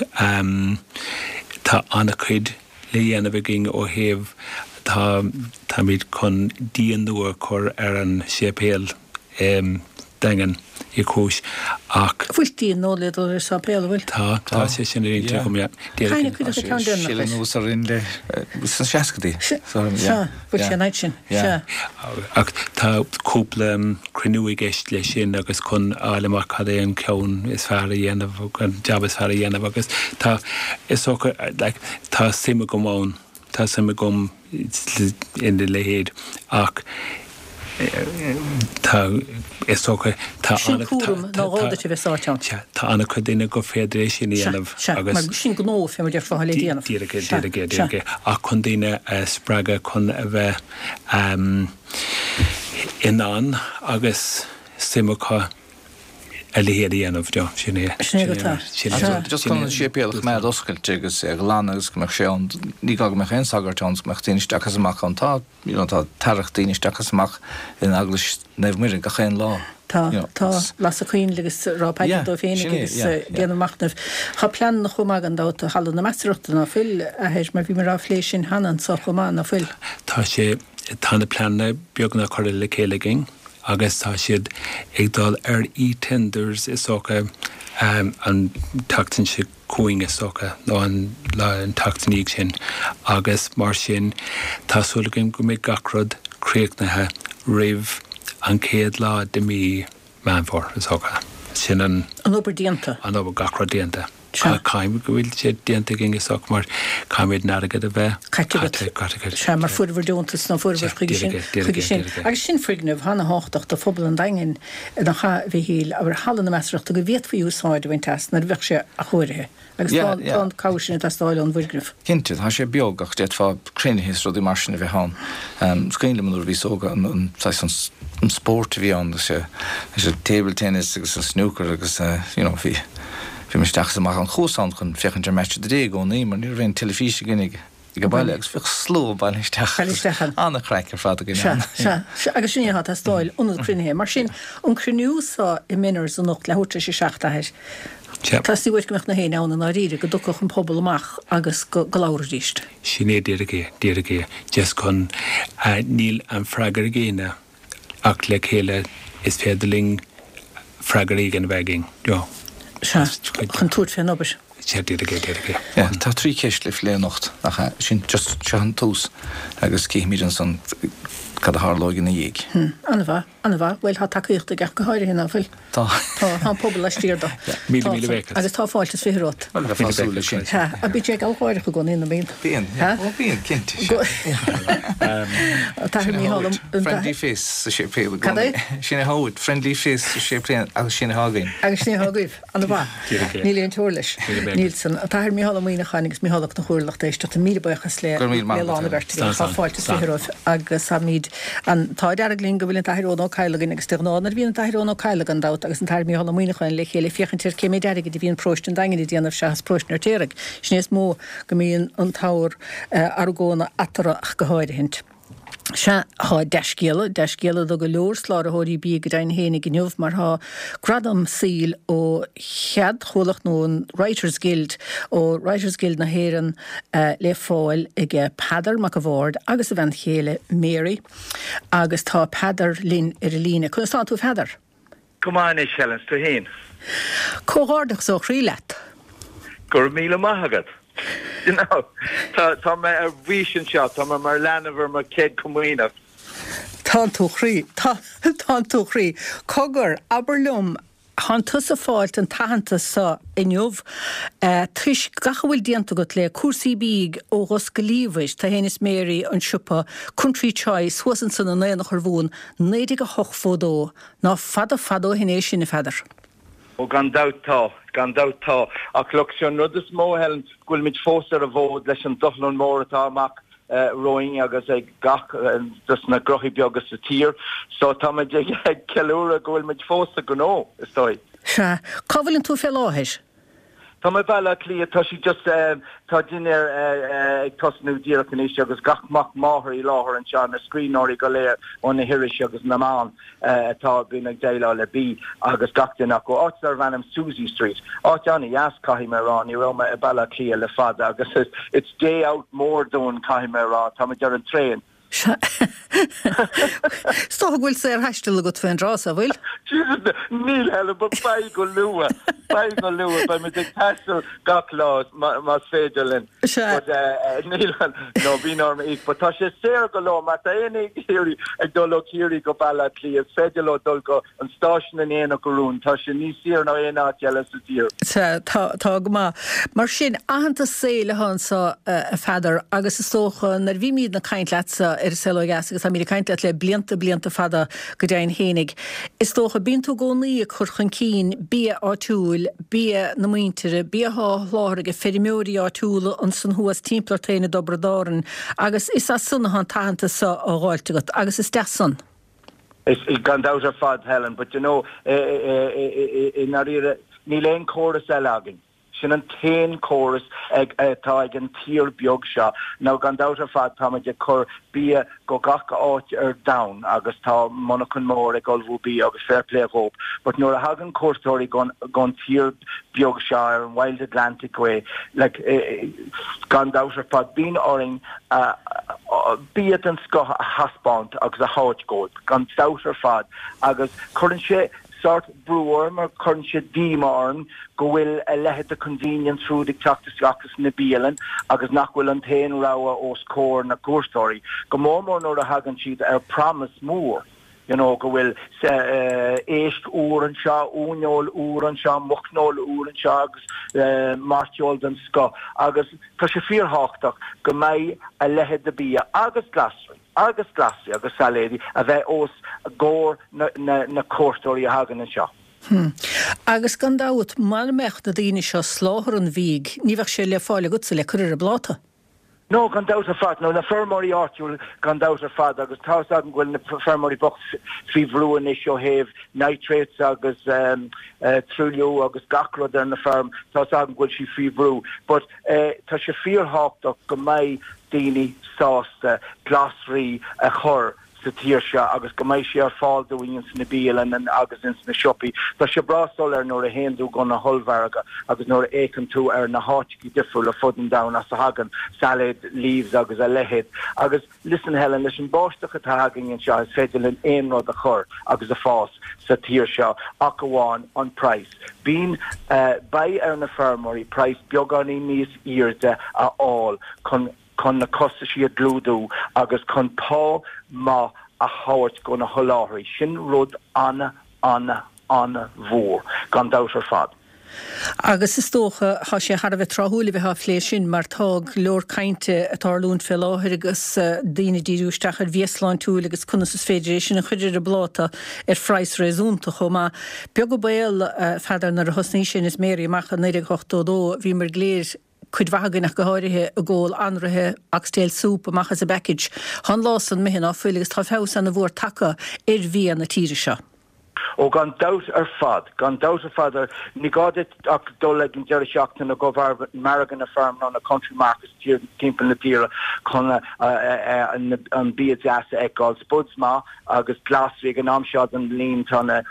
tá an-chuid le dhéanamh againn ó thaobh tá táimid chun díon nua a chur ar an séipéal i Daingean Uí Chúis ach Bhfuil díon nua le dul ar an sáipéal, an bhfuil? Tá, tá sé sin ar intinn agam, yeah. Caithfidh cuid acu ceann deireanach leis. Anuas orainn le sna seascaidí. Sea, bhfuil sé an fhaid sin, sea. Ach tá cúpla cruinniú i gceist leis sin agus chun a fháil amach cad é an ceann is fearr a dhéanamh, an jab is fearr a dhéanamh agus tá, is dócha, like, tá suim agam ann, tá suim agam ina leithéid ach tá, is dócha, tá Sin cúram nár ghá duit a bheith sáite ann. Sea, tá an-chuid daoine gur féidir é sin a dhéanamh agus. Sea, mar sin gnó, fé mar déarfá, le déanamh. Díreach é, díreach é, díreach é. Ach chun daoine a spreagadh chun a bheith in ann agus suim acu a leithéid a dhéanamh, do, sin é. Sin é go tá. Sin é. Just chun an séipéal a choimeád oscailte agus é a ghlanadh agus go mbeadh sé ann, ní gá go mbeadh aon sagart ann, go mbeadh daoine isteach is amach ann. Tá, you know, tá tarrac daoine isteach is amach in Eaglais Naomh Muire gach aon lá. Tá, you know, tá, lasadh coinnle agus rá paidir dóibh féinig agus déanamh machnaimh. Tá pleananna chomh maith gan dabht do Halla na Measarthachta, ná fuil, a Athair, mar bhíomar á phlé sin cheana anso chomh maith, ná fuil? Tá sé, tá na pleananna beagnach curtha le chéile againn agus tá siad ag dul ar e-tenders is dócha an tseachtain seo chugainn is dócha, nó an lá, an tseachtain ina dhiaidh sin agus mar sin tá súil againn go mbeidh gach rud críochnaithe roimh an chéad lá de mí Meán Fómhair, is dócha. Sin an. An obair déanta. An obair, gach rud déanta. Sea. Caithfidh go bhfuil sé déanta againn is dócha mar caithfimid an airgead a bheith Caite agat. caite, caite. Sea, mar fuaireabhair deontas nó fuaireabhair chuige sin, chuige sin. Agus sin foirgneamh ana-thábhachtach do phobal an Daingin, nach ea, a Mhichíl, abair, Halla na Measarthachta go bhféadfaí úsáid a bhaint as nuair a bheadh sé athchóirithe. Agus Yeah, tá, yeah. tá an cabhair sin ag teastáil ón bhfoirgneamh. Cinnte, tá sé beag ach d'fhéadfá cruinnithe is rudaí mar sin a bheith ann. Is cuimhin liom nuair a bhíos óg an, an saghas an, an spórt a bhí ann, agus sé, an table tennis agus an snooker agus you know bhí, bhí mé isteach is amach ann. Chuas ann chun féachaint ar Match of the Day i gcónaí mar ní raibh aon teilifís againn ag, ag an baile agus bhíodh slua bailithe isteach Bailithe isteach ann. An-chraic ar fad againn Sea, ann. sea, sea, agus sin é atá ag teastáil, ionad cruinnithe. Mar sin, an cruinniú so i Menars anocht, leathuair tar éis a 7, a Athair, Sea. Teastaíonn uait go mbeadh na héinne ann i ndáiríre, go dtiocfadh an pobal amach agus go go labharfaidís. Sin é díreach é, díreach é. Just chun, níl an freagra ag éinne ach le chéile is féidir linn freagra éigin a bheith againn. You know. Sea, chun tabhairt fén obair. Sea, díreach é, díreach é. Yeah, tá 3 ceist le plé anocht, nach ea? Sin just, seo an tús agus cífimid ansan. cad a tharlóidh ina dhiaidh. An-mhaith, an-mhaith. Bhuel, tá tacaíocht aige ach go háirithe, ná fuil? Tá. Tá, tá an pobal laistiar de. Míle, míle buíochas. Agus tá fáilte is 20 romhat. Bhuel, bheifeá ag súil leis sin. Sea. Ach bíonn sé ag gealgháireach i gcónaí, nó bíonn? Bíonn, yeah. Ó, bíonn, cinnte, sea. An tAthair Mícheál Ó. Friendly face sa séipéal i gcónaí. Cad é? Sin é atá uait, friendly face sa séipéal agus sin atá againn. Agus sin é atá agaibh. An-mhaith. Níl aon teora leis. Níl san. An tAthair Mícheál Ó Muíneacháin agus Mícheál Ó Conchúir lucht éisteachta, míle buíochas le lán an bheirt agaibh. Tá fáilte is 20 romhaibh agus táimid an t-ádh dearg linn go bhfuil an tAthair Eoin Ó Cadhla againn agus de ghnáth nuair a bhíonn an tAthair Eoin Ó Cadhla gan dabht agus an tAthair Mícheál Ó Muíneacháin le chéile féachaint ar cé méid airgid a bhíonn paróiste an Daingin ag déanamh seachas paróiste an Fheirtéaraigh. Sin é is mó go mbíonn an t-ábhar argóna eatarthu ach go háirithint. Sea, tá dea-scéala, dea-scéala do go leor soláthróirí bídh go deimhin fhéinig inniu mar tá gradam saoil ó cheadchomhlacht nó an Writers Guild, ó Writers Guild na hÉireann le fáil aige Peadar Mac a' Bhaird agus a bhean chéile Mary agus tá Peadar linn ar an líne. Conas tánn tú a Pheadair? Go maith anois, Helen, 's tú fhéin? Comhghairdeachas ó chroí leat. Go raibh míle maith agat. You know, tá, tá mé ar bís anseo, tá mé mar leanbh ar mo chéad comaoineach. Tánn tú a chroí, tá, tánn tú a chroí. Cogar, abair liom, thánn tusa ag fáilt an t-aitheantas so inniu toisc gach a bhfuil déanta agat le cúrsaí bídh ó Dhos go Liamhais, tú fhéin is Mary, an siopa Country Choice thuas ansan in Aonach Urmhumhan, 1908 fódó. Ná fada fada ó shin é sin, a Pheadair. Ó gan dabht tá, gan dabht tá. Ach look, sé an rud is mó, Helen, go bhfuilimid fós ar an bhfód leis an dushlán mór atá amach romhainn agus ag gach dos na gnóthaí beaga sa tír. So táimid ag ceiliúradh go bhfuilimid fós sa ghnó, is dóigh. Sea. Cá bhfuileann tú fé láthair? Tá mé i Baile Átha Cliath, tá sí just, tá dinnéar ag tosnú díreach anois agus gach mac máthar i láthair anseo, na scríbhneoirí go léir ó na hirisí agus na meáin atá bíonn ag déileáil le bia agus gach duine acu. Áit darbh ainm Suzy Street. Áit an-dheas caithfidh mé a rá, ní raibh mé i Baile Átha Cliath le fada agus it's day out mór dúinn caithfidh mé a rá, táimid ar an traein. Sea. Is dócha go bhfuil saorthaisteal agat fén dtráth so, bhfuil? Jesus, níl, Helen, but beidh go luath. Beidh go luath. Beidh muid ag taisteal gach lá más féidir linn. Sea. But níl, no, bíonn orm íoc. But tá sé saor go leor. Má tá éinne ag iarraidh ag dul ó Chiarraí go Baile Átha Cliath, is féidir leo dul go an stáisiún in Aonach Urmhumhan, tá sé níos saoire ná aon áit eile sa tír. Sea, tá, tá go maith. Mar sin, aitheantas saoil atá anso, a Pheadair, agus is dócha, nuair a bhímídne ag caint leatsa ar An Saol Ó Dheas, agus táimíd ag caint leat le blianta, blianta fada go deimhin fhéinig, is dócha, bíonn tú i gcónaí ag cur chun cinn bia áitiúil, bia na muintire, bia atá á sholáthar ag feirmeoirí áitiúla ansan thuas timpeall ort féin i dTiobraid Árann, agus is as san atá an t-aitheantas so á dh'fháilt agat, agus is deas san. Is gan dabht ar fad, Helen, but you know, i ndáiríre, níl aon chóras eile againn. Sin an t-aon chóras atá ag an tír beag seo. Now, gan dabht ar fad, táimid ag cur bia go gach áit ar domhan agus tá monarchan mór ag ullmhú bia agus fair play dhóibh. But nuair a thagann cuairteoirí gon tír beag seo ar an Wild Atlantic Way, like, gan dabht ar fad, bíonn orainn bia den scoth a thaispeáint agus a thabhairt dhóibh, gan dabht ar fad, agus cuireann sé sórt brú orm or cuireann sé díomá orm go bhfuil a leithéid de convenience food ag teacht isteach sna bialann agus nach bhfuil an t-aon rogha os comhair na gcuairteoirí, go mór mór nuair a thagann siad ar promise mór. you know, go bhfuil éisc úr anseo, uaineoil úr anseo, muicneoil úr anseo agus mairteoil den scoth agus tá sé fíorthábhachtach go mbeidh a leithéid de bia agus glasraí agus glasraí agus sailéidí a bheith os comhair na cuairteoirí a thagann anseo. Hm. Agus gan dabht, mara mbeadh na daoine seo ag soláthar an bhídh, ní bheadh sé le fáil agatsa le cur ar an bpláta. No, gan dabht ar fad. No, na feirmeoirí áitiúil gan dabht ar fad agus tá fhios agam go bhfuil na feirmeoirí bocht faoi bhrú anois ó thaobh nitrates agus truailliú agus gach rud ar na feirm, tá fhios agam go bhfuil siad faoi bhrú. But tá sé fíorthábhachtach go mbeidh daoine sásta glasraí a chur sa tír seo agus go mbeidh sé ar fáil dúinn ins na bialanna agus ins na siopaí. Tá sé breá soiléir nuair a théann tú go na hollmhargadh agus nuair a fhéachann tú ar na háiteachaí difriúla fud an domhain as a thagann salad leaves agus a leithéid. Agus listen Helen, leis an báisteach atá againn anseo is féidir linn aon rud a chur agus a fás sa tír seo ach amháin an praghas. Bíonn, beidh ar na feirmeoirí praghas beagáinín níos airde a fháil chun chun na costaisí a chlúdú agus chun pá maith. a thabhairt go na sholáthraí, sin rud ana, ana, ana-mhór, gan dabht ar fad. Agus is dócha, tá sé thar a bheith tráthúil a bheith á phlé sin mar tá go leor cainte ag tarlúint fé láthair agus daoine ag díriú isteach ar bhia sláintiúil agus conas is féidir é sin a chur ar an bpláta ar phraghas réasúnta chomh maith. Beag an baol, a Pheadair, nuair a thosnaigh Inis Mary amach i 1982, bhíomar go léir, cuid mhaith againn ach go háirithe, ag ól anraithe oxtail soup amach as an bpackage. Tá an lá san imithe ná fuil agus tá feabhas ana mhór tagtha ar bhia na tíre seo. Ó gan dabht ar fad, gan dabht ar fad. Ní gá duit ach dul ag an deireadh seachtaine go margadh na feirme nó na country markets timpeall na tíre chun an bia deas a fheiceáil. Spuds maith agus glasraí ag an am seo den bhliain tá na,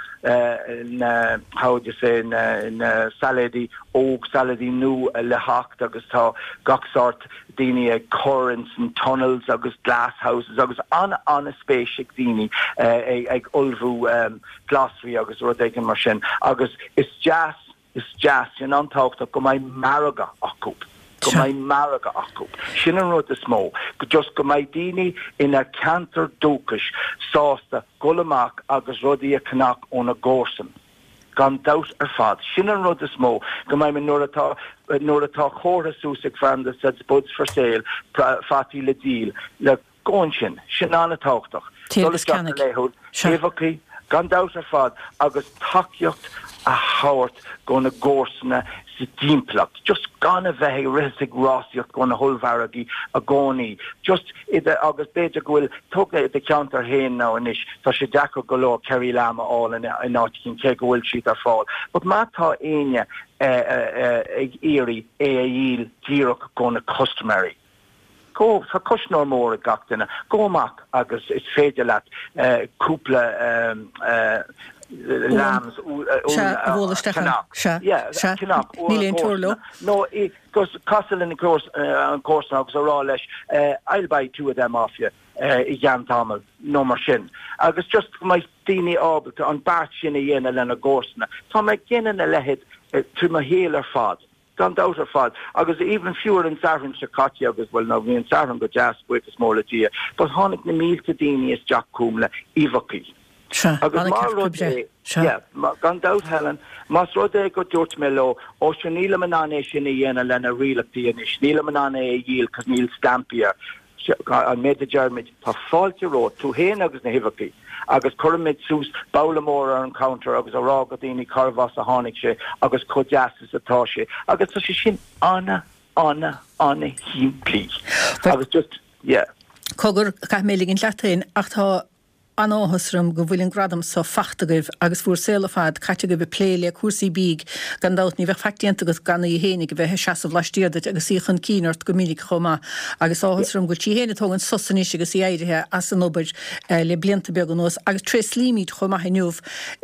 na, how would you say, na, na sailéidí óg, sailéidí nua le theacht agus tá gach sórt daoine ag cur ins an tunnels agus glasshouses agus an-an-spéis ag daoine ag ullmhú glasraí agus rud éigin mar sin agus is deas, is deas, sin an-tábhachtach go mbeidh margadh acu, go mbeidh margadh acu. Sin an rud is mó, just go mbeidh daoine ina ceantar dúchais sásta dhul amach agus rudaí a cheannach óna gcomharsan. Gan dabht ar fad. Sin an rud is mó, go mbeidh mé, nuair atá, nuair atá comhartha suas ag feirm that said spuds for sale, fataí le díol, le, go ansin. Sin an-tábhachtach. Téigh agus Dul isteach go ceannaigh. laethúil, Sea. uibheachaí, gan dabht ar fad, agus tacaíocht a thabhairt go na gcomharsana sa dtimpeallacht. Just gan a bheith ag rith is ag rásaíocht go na hollmhargaí i gcónaí. Just i do, agus b'fhéidir go bhfuil, tóg i do cheantar féin now anois, tá sé deacair go leor Kerry lamb a fháil in in áit éicint cé go bhfuil siad ar fáil. But má tá éinne ag iarraidh é a dhíol díreach go na custaiméirí, Go, tá cuisneoir mór ag gach duine. Gabh amach agus is féidir leat cúpla lambs Sea, a bhualadh isteach ann. ceannach. Sea, Yeah, sea. ceannach ó Níl an aon teora leo. gcomharsana. Nó casadh lena an comharsana agus a rá leis, I'll buy two of them off you i gceann tamaill, nó mar sin. Agus just go mbeidh daoine ábalta an beart sin a dhéanamh lena gcomharsana. Tá mé ag déanamh a leithéid trí mo shaol ar fad. Gan dabht ar fad. Agus even fiú ar an Satharn seo caite agus, bhuel, now bhí an Satharn go deas, buíochas mór le Dia, but tháinig na mílte daoine isteach chugam le uibheachaí. Sea, Agus ana má ceart rud oibre. é, Sea. yeah, gan dabht Helen, más rud é go dúirt mé leo, ó sure nílim in ann é sin a dhéanamh lena rialachtaí anois, nílim in ann é a dhíol cos níl stampaí air. An méid a deirimid, tá fáilte romhat, tú féin agus na huibheachaí, agus cuirimid suas babhla mór ar an counter agus a rá go daoine cárbh as a tháinig sé agus chomh deas is atá sé. Agus tá sé sin ana, ana, ana shimplí. Agus just, yeah. Cogar, caithfidh mé ligint leat féin, ach tá An-áthas orm go bhfuil an gradam so fachta agaibh agus bhúr saol ar fad caite agaibh ag plé le cúrsaí bídh. Gan dabht ní bheadh faic déanta agat gan í fhéinig a bheith ag seasamh laistiar duit agus í chun cinn ort go minic chomh maith. Agus áthas orm go bhfuil sí fhéin ag tógaint sos anois agus í éirithe as an obair le blianta beaga anuas. Agus tréaslaímid chomh maith inniu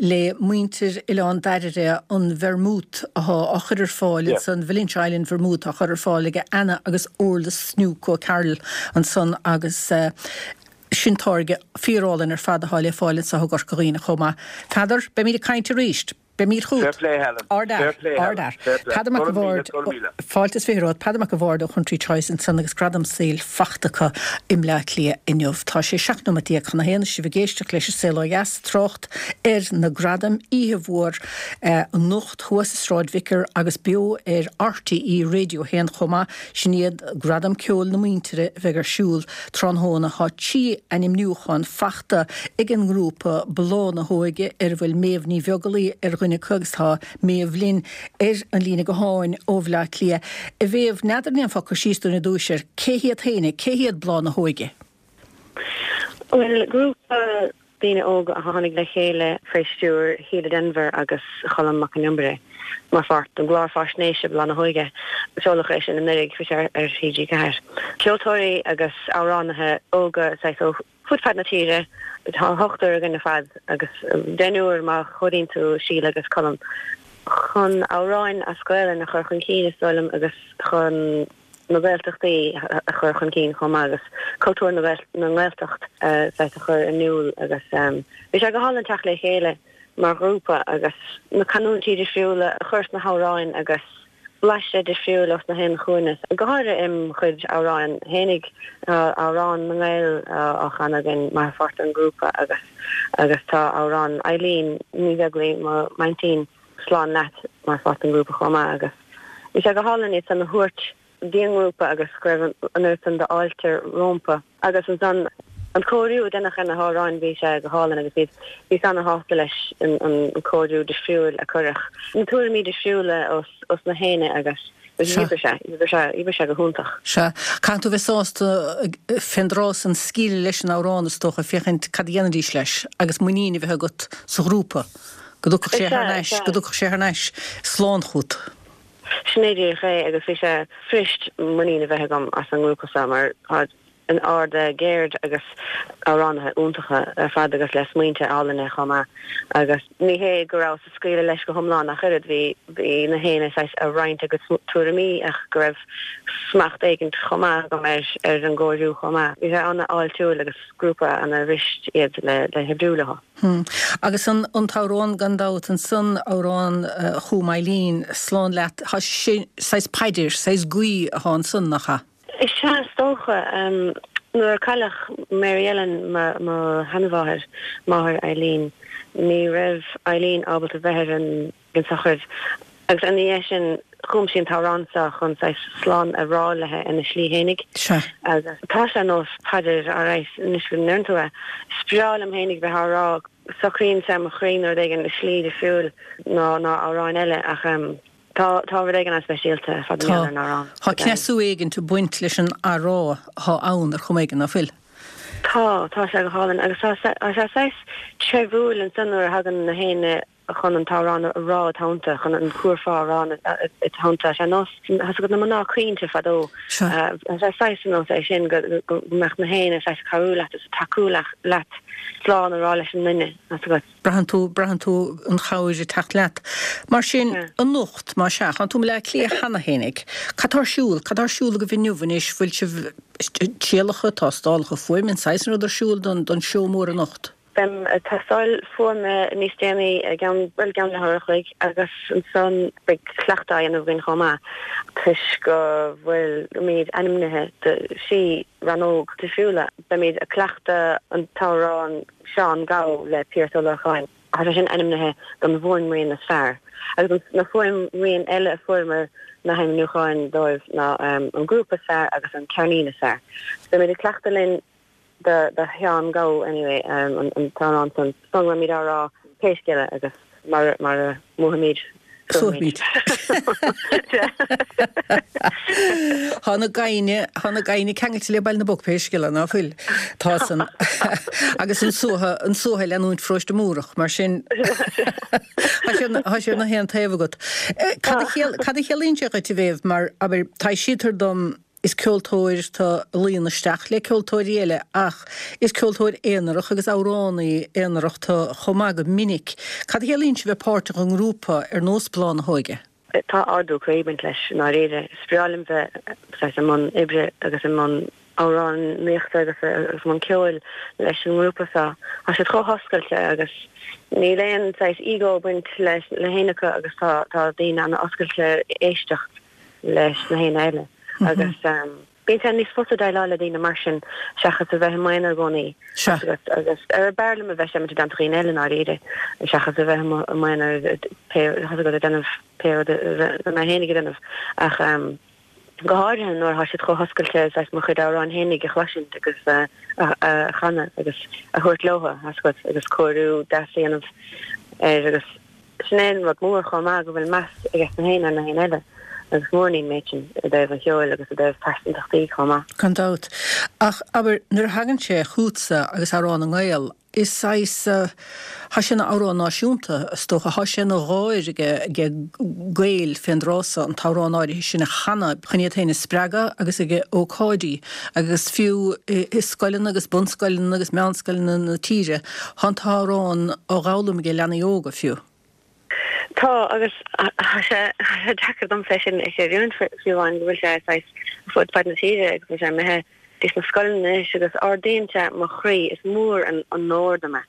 le muintir Oileán Dairbhre an vermouth athá á chur ar fáil ansan, Valentia Island Vermouth á chur ar fáil ag Anna agus Orla Snook O'Carroll ansan agus Sin táirge fíorálainn ar fad atá le fáil anseo i gCorca Dhuibhne chomh maith. Peadar, beimid ag caint arís. Beimid Fair chugat. play, Helen. Ard-fhear. Fair play, Helen. Ard-fhear. Fair play. Peadar Mac Go a' raibh míle, Bhaird, go raibh míle. fáilte is 20 romhat. Peadar Mac a' Bhaird ó Country Choice ansan agus Gradam Saoil fachta acu i mBleá Cliath inniu. Tá sé 17 nóiméad chun a haon is sibh ag éisteacht leis an Saol Ó Dheas, trácht ar na gradaim, oíche mhór anocht thuas i Sráid Vicar agus beo ar RTÉ Radio 1 chomh maith. Sin iad Gradaim Ceoil na Muintire a bheidh ar siúl tráthnóna. Tá 3 ainmniúchán fachta ag an ngrúpa Bláth na hÓige ar a bhfuil Méabh Ní Bheaglaoí ar dhuine acu agus tá Méabh linn ar an líne gutháin ó Bhleá Cliath. A Mhéabh, n'fheadar an ndéanfá cur síos dúinn ar dtúis ar cé hiad féin, cé hiad Bláth na hÓige? Bhuel, grúpa daoine óga a tháinig le chéile faoi stiúir Shíle Denvir agus Cholm Mac Con Iomaire mar pháirt den gclár faisnéise Bláth na hÓige. Seoladh é sin anuraidh, bhí sé ar TG4. Ceoltóirí agus amhránaithe óga saghas ó fud fad na tíre. Tá ochtar againn ar fad agus deichniúr má chomhaireann tú Síle agus Colm. Chun amhráin as Gaelainn a chur chun cinn is dóigh liom agus chun na Gaeltachtaí a chur chun cinn chomh maith agus cultúr na nGaeltacht saghas a chur in iúl agus bhí sé go hálainn teacht le chéile mar ghrúpa agus na canúintí difriúla a chur sna hamhráin agus. Blaiseadh difriúil os na haon chúinne, go háirithe im chuid amhráin fhéinig. Tá amhrán na nGael á chanadh againn mar pháirt den ghrúpa agus agus tá amhrán Eileen Ní Bheaglaoi, mo m'aintín, Slán Leat, mar pháirt den ghrúpa chomh maith agus bhí sé go hálainn iad san a thabhairt dtí an ngrúpa agus go raibh an oiread san d'fháilte rómpa. Agus ansan an cóiriú a deineadh ar na hamhráin, bhí sé go hálainn agus bhí bhíos ana-shásta leis an cóiriú difriúil a cuireadh, na tuairimí difriúla os os na héinne agus Sea. d'oibrigh sé, d'oibrigh sé, d'oibrigh sé go hiontach. Sea. Caithfidh tú bheith sásta fén dtráth san scaoileadh leis an amhrán is dócha, féachaint cad a dhéanfaidís leis agus muinín a bheith agat sa ghrúpa go dtiocfadh sé thar Sea, n-ais, sea. go dtiocfadh sé thar n-ais slán chugat. Sin é díreach é agus bhí sé fuirist muinín a bheith agam as an ngrúpa seo mar tá an ard-cheird agus amhránaithe iontacha ar fad agus le smaointe álainne chomh maith agus ní hé go rabhas ag scaoileadh leis go hiomlán ach oiread, bhí bhí na héinne saghas ag roinnt a gcuid tuairimí ach go raibh smacht éigint chomh maith agam ar ar an gcóiriú chomh maith. Bhí sé an-fháiltiúil agus grúpa ana-fhuirist iad le le hoibriú leo. Hm. Agus an an t-amhrán gan dabht ansan, amhrán chum Eileen, Slán Leat, tá sé saghas paidir, saghas guí athá ansan, nach ea? Is ea, is dócha. Nuair a cailleadh Mary Ellen, mo sheanmháthair, máthair Eileen, ní raibh Eileen ábalta bheith ar an tsochraid agus ina dhiaidh sin chum sí an t-amhrán seo chun saghas slán a rá léi ina slí fhéinig. Sea. Agus tá sé ar nós paidir, alright, anois go ndeireann tú é. Is breá liom fhéinig bheith á rá, socraíonn sé mo chroí nó rud éigin i slí difriúil ná amhráin eile ach. Tá, tá rud éigin an-speisialta ar fad Tá. ar an amhrán. Tá cneasú éigint ag baint leis an athrá atá ann ar chuma éigin, ná fuil? Tá, tá sé go hálainn agus tá sé, tá sé saghas treibhiúil ansan nuair a thagann na héinne chun an t-amhrán a rá i dteannta, chun an cúrfá a rá i dteannta. Tá sé ar nós, tá 's agat na mná caointe fadó. Sea. Tá sé saghas ar nós é sin go, go mbeadh na héinne saghas ag cabhrú leat is ag tacú leat slán a rá leis an nduine, tá 's agat. Braitheann tú, braitheann tú an chabhair ag teacht leat. Mar sin, anocht, más ea, tánn tú i mBleá Cliath cheana fhéinig. Cad tá ar siúl? Cad tá ar siúl agaibh inniu anois? Bhfuil sibh, trialacha, tástálacha fuaime, an saghas san rud ar siúl don, don seó mór anocht? Beim ag tástáil fuaime níos déanaí i gceann, bhuel, i gceann leathuair a chloig agus ansan beidh cleachtadh á dhéanamh againn chomh maith toisc go bhfuilimid ainmnithe do thrí rannóg difriúla. Beimid ag cleachtadh an t-amhrán Seán Gabh le Piaras Ó Lorcáin. Tá sé sin ainmnithe don bhfuaimrian is fearr. Agus na fuaimrian eile a fuaireamar na hainmniúcháin dóibh ná an grúpa is fearr agus an ceirnín is fearr. Beimid ag cleachtadh linn do Sheán Gabh anyway, an t-amhrán san. San beimid á rá pé scéal é agus mar a mbuafaimid Suafaimid. Tá na gaibhne, tá na gaibhne ceangailte le Baile na bPoc pé scéal é, ná fuil? Tá san. Agus an suaitheadh, an suaitheadh ag leanúint Pharóiste Múrach, mar sin tá sé, tá sé ar na haon taobh agat. Cad a chiall, cad a chiallaíonn sé dhuit a Mhéabh, mar, abair, taibhsítear dom, Is ceoltóir tú a luíonn isteach le ceoltóirí eile ach is ceoltóir aonarach agus amhránaí aonarach tú chomh maith go minic. Cad a chiallaíonn sé bheith páirteach i ngrúpa ar nós Bláth na hÓige? Tá ardú croí ag baint leis i ndáiríre. Is breá liom bheith saghas i mbun oibre agus i mbun amhránaíochta agus i mbun ceoil leis an ngrúpa seo. Tá siad chomh hoscailte agus níl aon saghas ego ag baint le héinne acu agus tá daoine an-oscailte éisteacht leis na héinne eile agus bíonn sé níos fusa déileáil le daoine mar sin seachas a bheith i m'aonar i gcónaí agus agus ar b'fhearr liom a bheith seimint i dteannta dhaoine eile i ndáiríre seachas a bheith i m'aonar pé tá 's agat ag déanamh pé rud a mé fhéinig ag déanamh ach go háirithe nuair atá siad chomh hoscailte saghas mo chuid amhráin fhéinig a chloisint agus a chanadh agus a thabhairt leo tá 's agat agus cóiriú deas a dhéanamh air agus Sin é an rud mór chomh maith, go bhfuil meas aige na héinne ar na héinne eile, agus is mór an méid sin i dtaobh an cheoil agus i dtaobh pearsantachtaí chomh maith. Gan dabht. Ach, abair, nuair a thagann sé chughatsa agus Amhrán na nGael, is saghas, thá sé ina amhrán náisiúnta, is dócha, thá sé ina dháir age Gaeil fén dtráth so an t-amhrán áirithe sin a chanadh chun iad féin a spreagadh agus age ócáidí agus fiú i scoileanna agus bunscoileanna agus meánscoileanna na tíre, Thá an t-amhrán á dh'fhoghlaim age leanaí óga, fiú. Tá, agus tá sé deacair domsa é sin a chreidiúint fiú amháin, go bhfuil sé saghas fud fad na tíre agus go bhfuil sé imithe dtí sna scoileanna anois agus ardaíonn sé mo chroí, is mór an onóir dom é.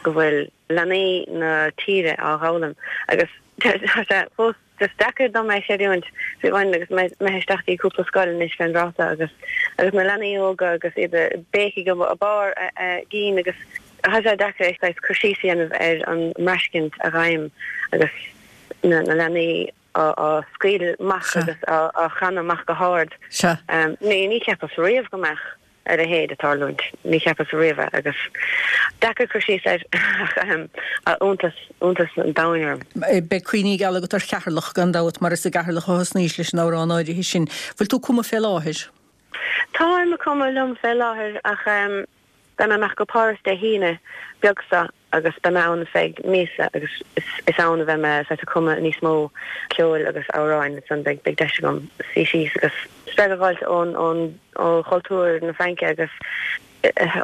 go bhfuil leanaí na tíre á dh'fhoghlaim agus tá sé fós just deacair dom é chreidiúint fiú amháin agus mé imithe isteach dtí cúpla scoil anois fén dtráth agus agus na leanaí óga agus iad ag béicigh i barr a gcinn agus tá sé deacair saghas cur síos a dhéanamh ar an mbraistint a ghabhaim agus na leanaí á scaoileadh amach agus á chanadh amach go hard. Ní cheapas riamh go mbeadh a leithéid ag tarlúint. Ní cheapas riamh é agus deacair cur síos air ach iontas, iontas an domhain orm. Beidh cuimhní geala agat ar Cheatharlach gan dabht mar is i gCeatharlach a thosnaís leis an amhrán áirithe sin. Bhfuil tú ag cumadh fé láthair? Táim ag cumadh liom fé láthair ach beidh mé amach go Páras Dé hAoine beag seo agus beidh mé ann feadh míosa agus is ann a bheidh mé saghas ag cumadh níos mó ceoil agus amhráin ansan beidh beidh deis agam suí síos agus spreagadh a dh'fháilt ón ón ó chultúr na Fraince agus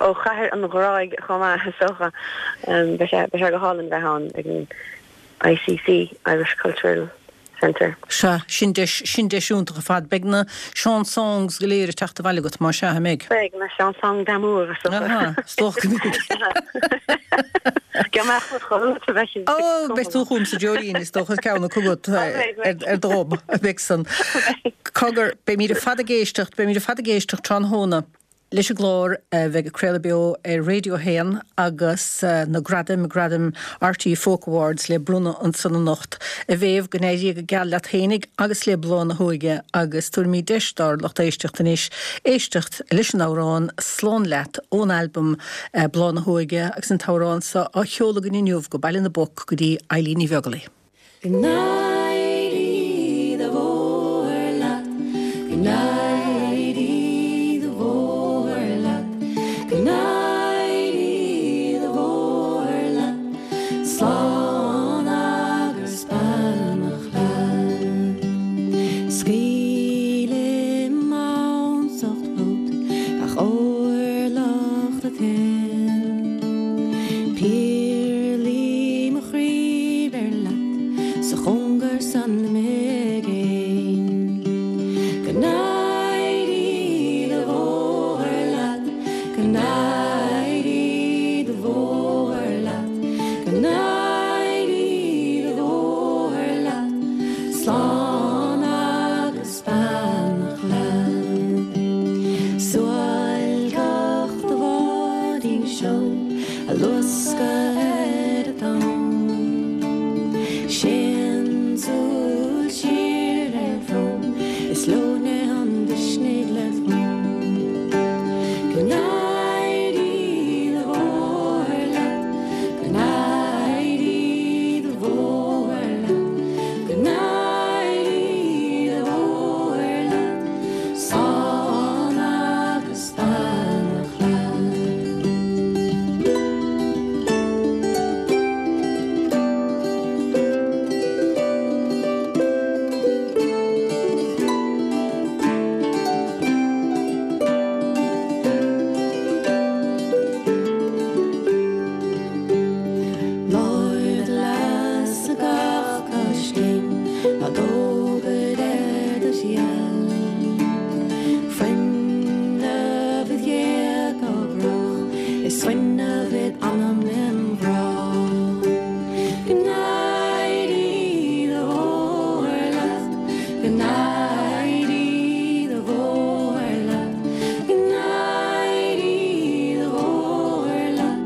ó chathair an ghráidh chomh maith is dócha. Beidh sé beidh sé go hálainn bheith ann ag an ICC, Irish Cultural Centre. Sea, sin deis, sin deis iontach ar fad. Beidh na chansons go léir ag teacht abhaile agat, más ea, an mbeidh? Beidh, na chansons d'amour, is dócha. Aha, is dócha go mbeidh. Go mbeadh mo chodladh a bheith ag Ó, beidh tú chugam sa Dreoilín, is dócha, ceann acu agat ar do ghob, beidh san. Cogar, beimid ar fad ag éisteacht, beimid ar fad ag éisteacht tráthnóna. leis an gclár a bheidh ag craoladh beo ar Radio 1 agus na gradaim, Gradaim RTÉ Folk Awards le bronnadh ansan anocht. A Mhéabh, go n-éirí go geal leat fhéinig agus le Bláth na hÓige agus tabharfaimid deis dár lucht éisteachta anois éisteacht leis an amhrán Slán Leat ón albam Bláth na hÓige agus an t-amhrán seo á sheoladh againn inniu go Baile na bPoc go dtí Eilín Ní Bheaglaoich. Go n-éirí do bhóthar leat, go n-éirí do bhóthar leat, go n-éirí do bhóthar leat, slán agus beannacht leat. Scaoilim ansacht fút gach orlach de thoil, Péarlaí mo chroí beir leat sa chóngar san i gcéin. Go n-éirí do bhóthar leat, go n-éirí do bhóthar leat, go n-éirí do bhóthar leat, slán agus beannacht leat. Suáilceach do bháidín seoil a luascadh ar an dtonn. Séan súil siar ar shrón is leoithne an mhisnigh le tonn. Go n-éirí do bhóthar leat, go n-éirí do bhóthar leat, go n-éirí do bhóthar leat, slán agus beannacht leat. Lár do leasa gach coiscéim, ná dóbair ar do sheal. Fuinneamh id ghéaga brách is fuinneamh id anam im ghrá. Go n-éirí do bhóthar leat, go n-éirí do bhóthar leat, go n-éirí do bhóthar leat,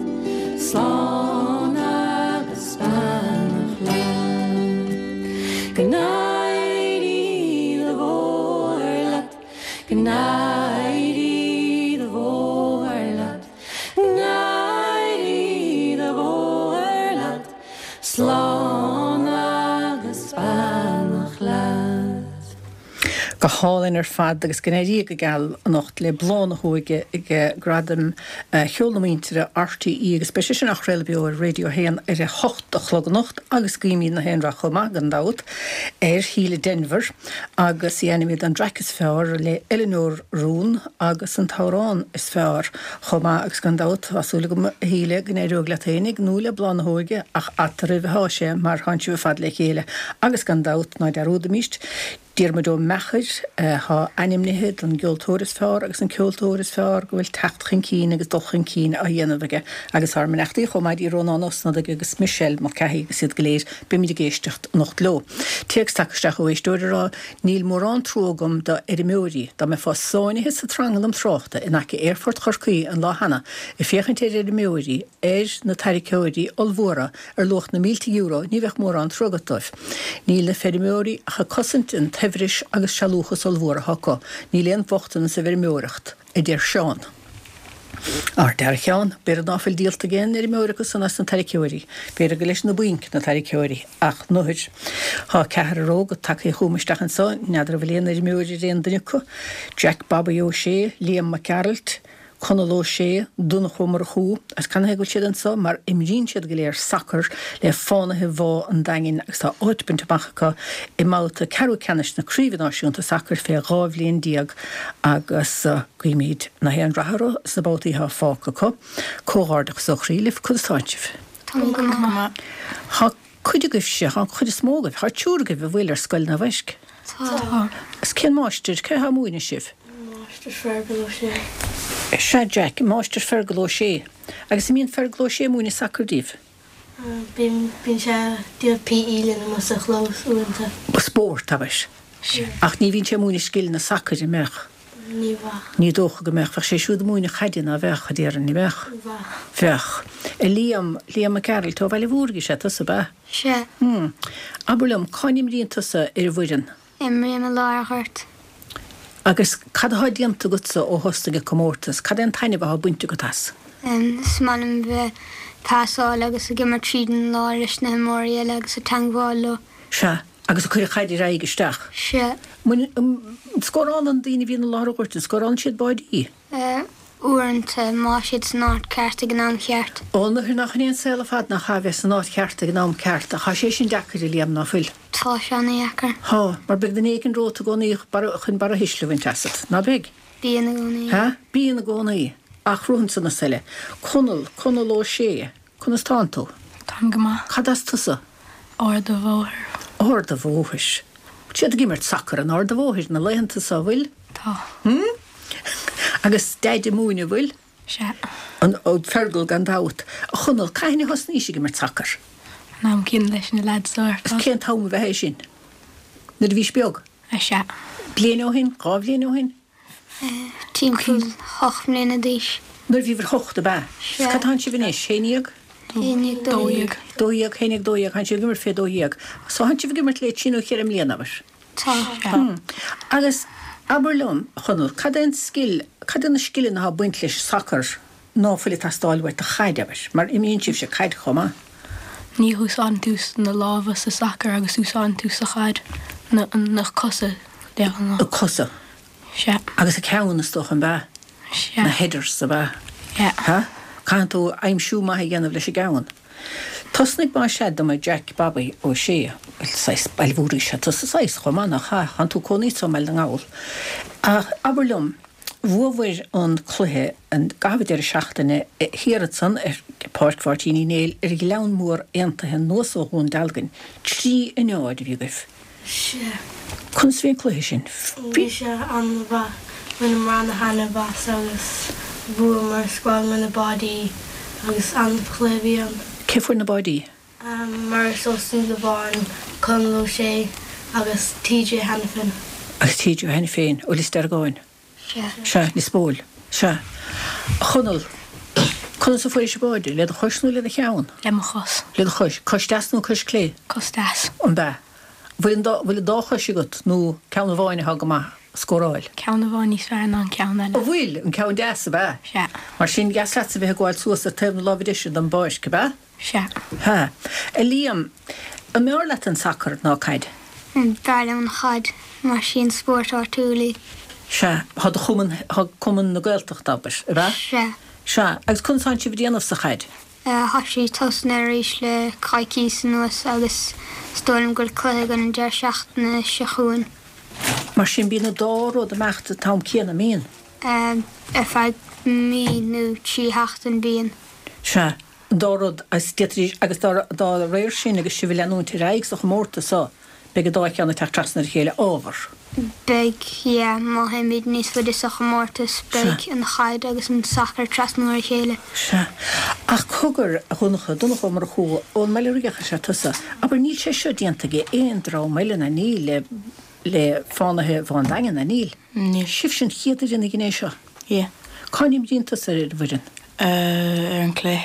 slán agus beannacht leat. Go n-éirí do bhóthar leat, go n-éirí do bhóthar leat, go n-éirí do bhóthar leat, slán agus beannacht leat. Go hálainn ar fad agus go n-éirí go geal anocht le Bláth na hÓige ag Gradaim Cheol na Muintire RTÉ agus beidh sé sin á chraoladh beo ar Radio 1 ar a hocht a chlog anocht agus guímid na haon rath chomh maith gan dabht ar Shíle Denvir agus í ainmnithe don dtraic is fearr le Eileanóir Rún agus an t-amhrán is fearr chomh maith agus gan dabht tá súil agam a Shíle go n-éireoidh leat fhéinig nó le Bláth na hÓige ach eatarthu atá sé mar tánn sibh ar fad le chéile agus gan dabht ná dearúdaimíst. Diarmuid Ó Meachair, atá ainmnithe don gceoltóir is fearr agus an ceoltóir is fearr go bhfuil teacht chun cinn agus dul chun cinn á dhéanamh aige agus ár mbeannachtaí chomh maith dtí Rónán Ó Snodaigh agus Michelle Mulcahy agus iad go léir, beimid ag éisteacht anocht leo. Téacs tagtha isteach ó éisteoir ag rá, Níl mórán trua agam do fheirmeoirí. Dá mbeifeá sáinnithe sa tranglam tráchta in aice Aerfort Chorcaí an lá cheana ag féachaint ar fheirmeoirí, ar na tarraiceoirí ollmhóra ar luach na mílte euro, ní bheadh mórán trua agat dóibh. Níl na feirmeoirí ach ag cosaint an tsaibhris agus sealúchas ollmhór atá acu. Níl aon bhochtanas sa bhfeirmeoireacht, a deir Seán. Ar dear a Sheáin, b'fhéidir ná fuil díolta ag aon fheirmeoir acu san as na tarraiceoirí. B'fhéidir gur leis na bainc na tarraiceoirí. Ach nuair. Thá ceathrar óg tagtha chugam isteach anso, n'fheadar an bhfuil aon fheirmeoir ar aon duine acu, Jack Bobby Ó Sé, Liam Mac Gearailt, Conall Ó Sé, Donncha Ó Murchú, agus canathaobh go bhfuil siad anso? Mar imríonn siad go léir sacar le Fánaithe Bhá an Daingin agus tá áit bainte amach acu i mbabhta ceathrú ceannais na Craoibhe Náisiúnta Sacair fé 12 bhliain agus guímid na haon rath orthu sna babhtaí atá fágtha acu. Comhghairdeachas ó chroí libh. Conas tánn sibh? Tá go maith. Tá cuid agaibhse, tá an chuid is mó agaibh, tá triúr agaibh a bhfuil ar scoil Naomh Eisc? Tá. Agus cén máistir, cé atá ag múineadh sibh? Máistir Fergal Ó Sé. Sea Jack, Máistir Fergal Ó Sé. Agus an mbíonn Fergal Ó Sé ag múineadh sacair daoibh? Bíonn, bíonn sé ag déanamh PE linn amuigh sa chlós uaireanta. Spórt, abair. Ach ní bhíonn sé ag múineadh scileanna sacair, an mbeadh? Ní bheadh. Ní dócha go mbeadh. Bheadh sé siúd ag múineadh caide, ná bheadh, a déarfainn, ní bheadh? Bheadh. Bheadh. A Liam, Liam Mac Gearailt, ó Bhaile Bhúirne is ea tusa, ab ea? Sea. Hm. Abair liom, cá n-imríonn tusa ar an bhfoireann? Imrím i lár an ghoirt. Agus cad atá déanta agatsa ó thosnaigh an comórtas? Cad é an taitneamh atá bainte agat as? Is maith liom bheith ag pasáil agus ag imirt tríd an lár leis na himreoirí eile agus ag teangmháil leo. Sea. Agus ag cur an chaid ar aghaidh isteach. Sea. An scórálann na daoine a bhíonn i lár an ghoirt, an scórálann siad báidí? Uaireanta, má tá siad san áit ceart ag an am cheart. Ó, nuair nach in é an saol ar fad nach ea, bheith san áit cheart ag an am ceart. Ach tá sé sin deacair, a Liam, ná fuil? Tá sé ana-dheacair. Tá, mar beidh duine éigin romhat i gcónaí chun barra thuisle a bhaint asat, ná beidh? Bíonn i gcónaí. Hea? Bíonn i gcónaí. Ach rothann na soile. Conall, Conall Ó Sé, conas tánn tú? Táim go maith. Cad as tusa? Ard a' Bhóthair. Ard a' Bhóthair. Bhfuil siad ag imirt sacair in Ard a' Bhóthair na laethanta so, bhfuil? Tá. Hm? Agus Deaid ag múineadh, bhfuil? Sea. An, Fergal gan dabht. A Chonaill, cathain a thosnaís ag imirt sacair? An am céanna leis na leaids so ar fad. Cén t-am a bheadh é sin? Nuair a bhís beag? Sea. Bliain ó shin? 2 bhliain ó shin? Timpeall 8 mbliana d'aois. Nuair a bhíobhair 8, ab ea? Sea. Cad tánn sibh anois? 11? 11, 12. 12, 11, 12, tánn sibh ag imirt fé 12. So tánn sibh ag imirt le trí nó cheithre mbliana, abair? Tá. Sea. Agus abair liom, a Chonaill, cad é an scil, cad é na scileanna atá ag baint leis an sacar ná fuil ag teastáil uait do chaid, abair, mar imríonn sibhse caid chomh maith? Ní húsáideann tú na lámha sa sacar agus úsáideann tú sa chaid na na cosa de ghnáth. Na cosa. Sea. Agus an ceann, is dócha, an b'ea? Sea. Na headers, ab ea? Sea. Ha? Caitheann tú aimsiú maith a dhéanamh leis an gceann. Tosnaigh más ea dom a Jack Bobby Ó Sé, bhuel, saghas Baile Bhúirne is ea tusa saghas chomh maith, nach ea? Tánn tú cónaí anso i mBaile na nGall. Ach abair liom, Bhuabhair an cluiche an gcaitheamh deireadh seachtaine thiar ansan ar Pháirc Mháirtín Uí Néill ar Ghleann Mór Aontaithe anuas ó Dhún Dealgan. 3 a 0 a bhí agaibh. Sea. Conas a bhí an cluiche sin? Bhí sé an-mhaith. Bhaineamar ana-thaitneamh as agus bhuamar, scórálamar na báidí agus an-chluiche a bhí ann. Cé fuair na báidí? Maurice Ó Súilleabháin, Conall Ó Sé agus TJ Hanafin. Agus TJ Hanafin ó Lios Deargáin. Sea. Sea, Lios Póil. Sea. A Chonaill, conas a fuairis an báide? Le do chois nó le do cheann? Le mo chos. Le do chois. Cois deas nó cois clé? Cos deas. An b'ea? Bhfuil an dá, bhfuil an dá chois agat nó ceann amháin atá go maith a scóráil? Ceann amháin níos fearr ná an ceann eile. An bhfuil? An ceann deas, ab ea? Sea. Mar sin, dheas leatsa bheith ag gabháil suas ar taobh na láimhe deise den bpáirc, ab ea? Sea. Sea. A Liam, an mb'fhearr leat an sacar ná caid? B'fhearr liom an chaid, mar sí an spórt áitiúil í. Sea. Tá do chumann, tá Cumann na Gaeltachta, abair, ab ea? Sea. Sea. Agus conas tánn sibh ag déanamh sa chaid? Tá sí tosnaithe arís le coicíos anuas agus is dóigh liom go bhfuil cluiche againn an deireadh seachtaine seo chugainn. Mar sin bíonn an dá rud ag imeacht an t-am céanna, an mbíonn? Ar feadh mí nó 3 sheachtain bíonn. Sea. An dá rud, agus d'fhéadfaidís, agus dá réir sin agus sibh ag leanúint ar aghaidh sa chomórtas so, Beidh an dá cheann ag teacht trasna ar a chéile, ábhar. Beidh, yeah. Má théimid níos faide sa chomórtas, beidh an chaid agus an sacar trasna ar a chéile. Sea. Ach cogar, a Dhonncha, Donncha Ó Murchú, ón mBaile Riach is ea tusa. Abair, níl sé seo déanta ag aon dream eile, ná níl, le, le Fánaithe Bhá an Daingin, ná níl? Níl. Sibhse an chéad fhoireann a dhein é seo? Yeah. Cá n-imríonn tusa ar an bhfoireann? Ar an clé.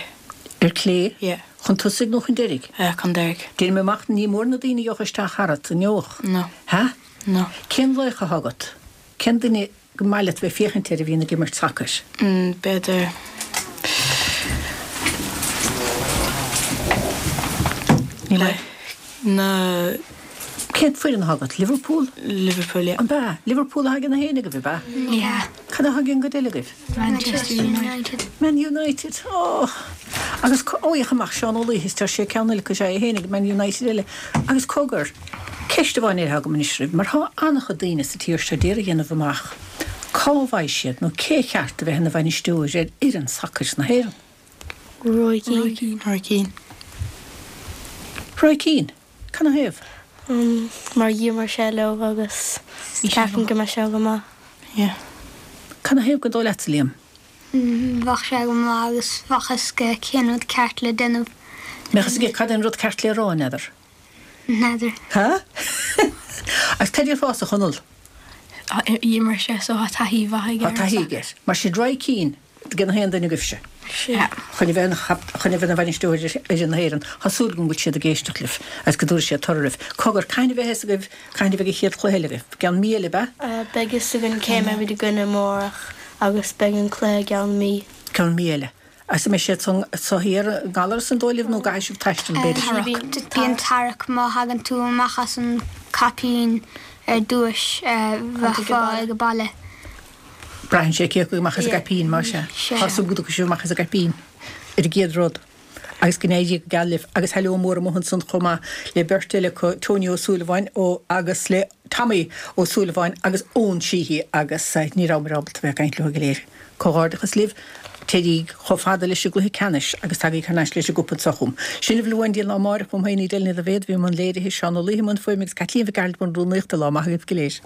Ar clé? Yeah. Chun tosaigh nó chun deiridh? Chun deiridh. Déanaim amach ní mór na daoine a gheobhadh isteach tharat, an ngeobhadh? No. Ha? No. Cén laoch atá agat? Cén duine go maith leat bheith ag féachaint air a bhíonn ag imirt sacair? B'fhéidir. Ní maith. Na. Cén foireann atá agat? Liverpool? Liverpool, yeah. An b'ea? Liverpool atá ag na héinne agaibh, ab ea? Yeah. Cad atá ag an gcuid eile agaibh? Manchester United. Man United, oh! Agus, ó, féach amach, Seán Ó Laoithe, is tá sé ceann eile acu, sea, é féin ag Man United eile. Agus cogar, ceist amháin eile atá agam anois oraibh, mar tá an-chuid daoine sa tír seo d'iarraidh a dhéanamh amach cá bhfaighidh siad nó cé cheart a bheith ina bhainisteoir ar fhoireann sacair na hÉireann. Roy Keane. Roy Keane. Roy Keane? Canathaobh? Mar d'imir sé leo agus ceapaim go mbeidh sé go maith. Yeah. Canathaobh gur dóigh leatsa, Liam? Bheadh sé go maith agus bheadh a fhios aige cén rud ceart le déanamh. Mbeadh a fhios aige cad é an rud ceart le rá, n'fheadar? N'fheadar. Ha? Agus cad déarfása, a Chonaill? D'imir sé so tá taithí mhaith aige Tá taithí aige. Mar sin Roy Keane. Ag na haon duine agaibhse. Sea. Chun a bheith chun a bheith ina bhainisteoir ar fhoireann na hÉireann. Tá súil agam go bhfuil siad ag éisteacht libh agus go dtabharfaidh siad toradh oraibh. Cogar, cathain a bheidh a fhios agaibh cathain a bheidh an chéad chluiche eile agaibh? I gceann mí eile, ab ea? Beidh a fhios againn cé a mbeimid i gcoinne amárach agus beidh an cluiche i gceann mí. Ceann mí eile. Agus an mbeidh sé anso thiar i nGallaras an dóigh libh nó an gcaithfidh sibh taisteal b'fhéidir? Bíonn tarrac má thagann tú amach as an caipín ar dtúis bheifeá ag baile. Braitheann sé cé acu amach as an gcaipín, más ea. Tá súil go dtiocfaidh sibh amach as an gcaipín ar an gcéad rud agus go n-éirí go geal libh. Agus heileo mór amuigh ansan chomh maith le beirt eile acu, Tony Ó Súilleabháin ó agus le Tommy Ó Súilleabháin agus Eoin Sheehy agus ní rabhamar ábalta bheith ag caint leo go léir. Comhghairdeachas libh, téiríg chomh fada leis an gcluiche ceannais agus tagaigí thar n-ais leis an gcupa anso chugam. Sin a bhfuil uainn go dtí an lá amáireach, uaim féin Edel Ní Dhaibhéad, bhí i mbun léirithe, Seán Ó Laoithe i mbun fuaime agus Caitlín Mhic Gearailt i mbun rúnaíochta. Lá maith agaibh go léir.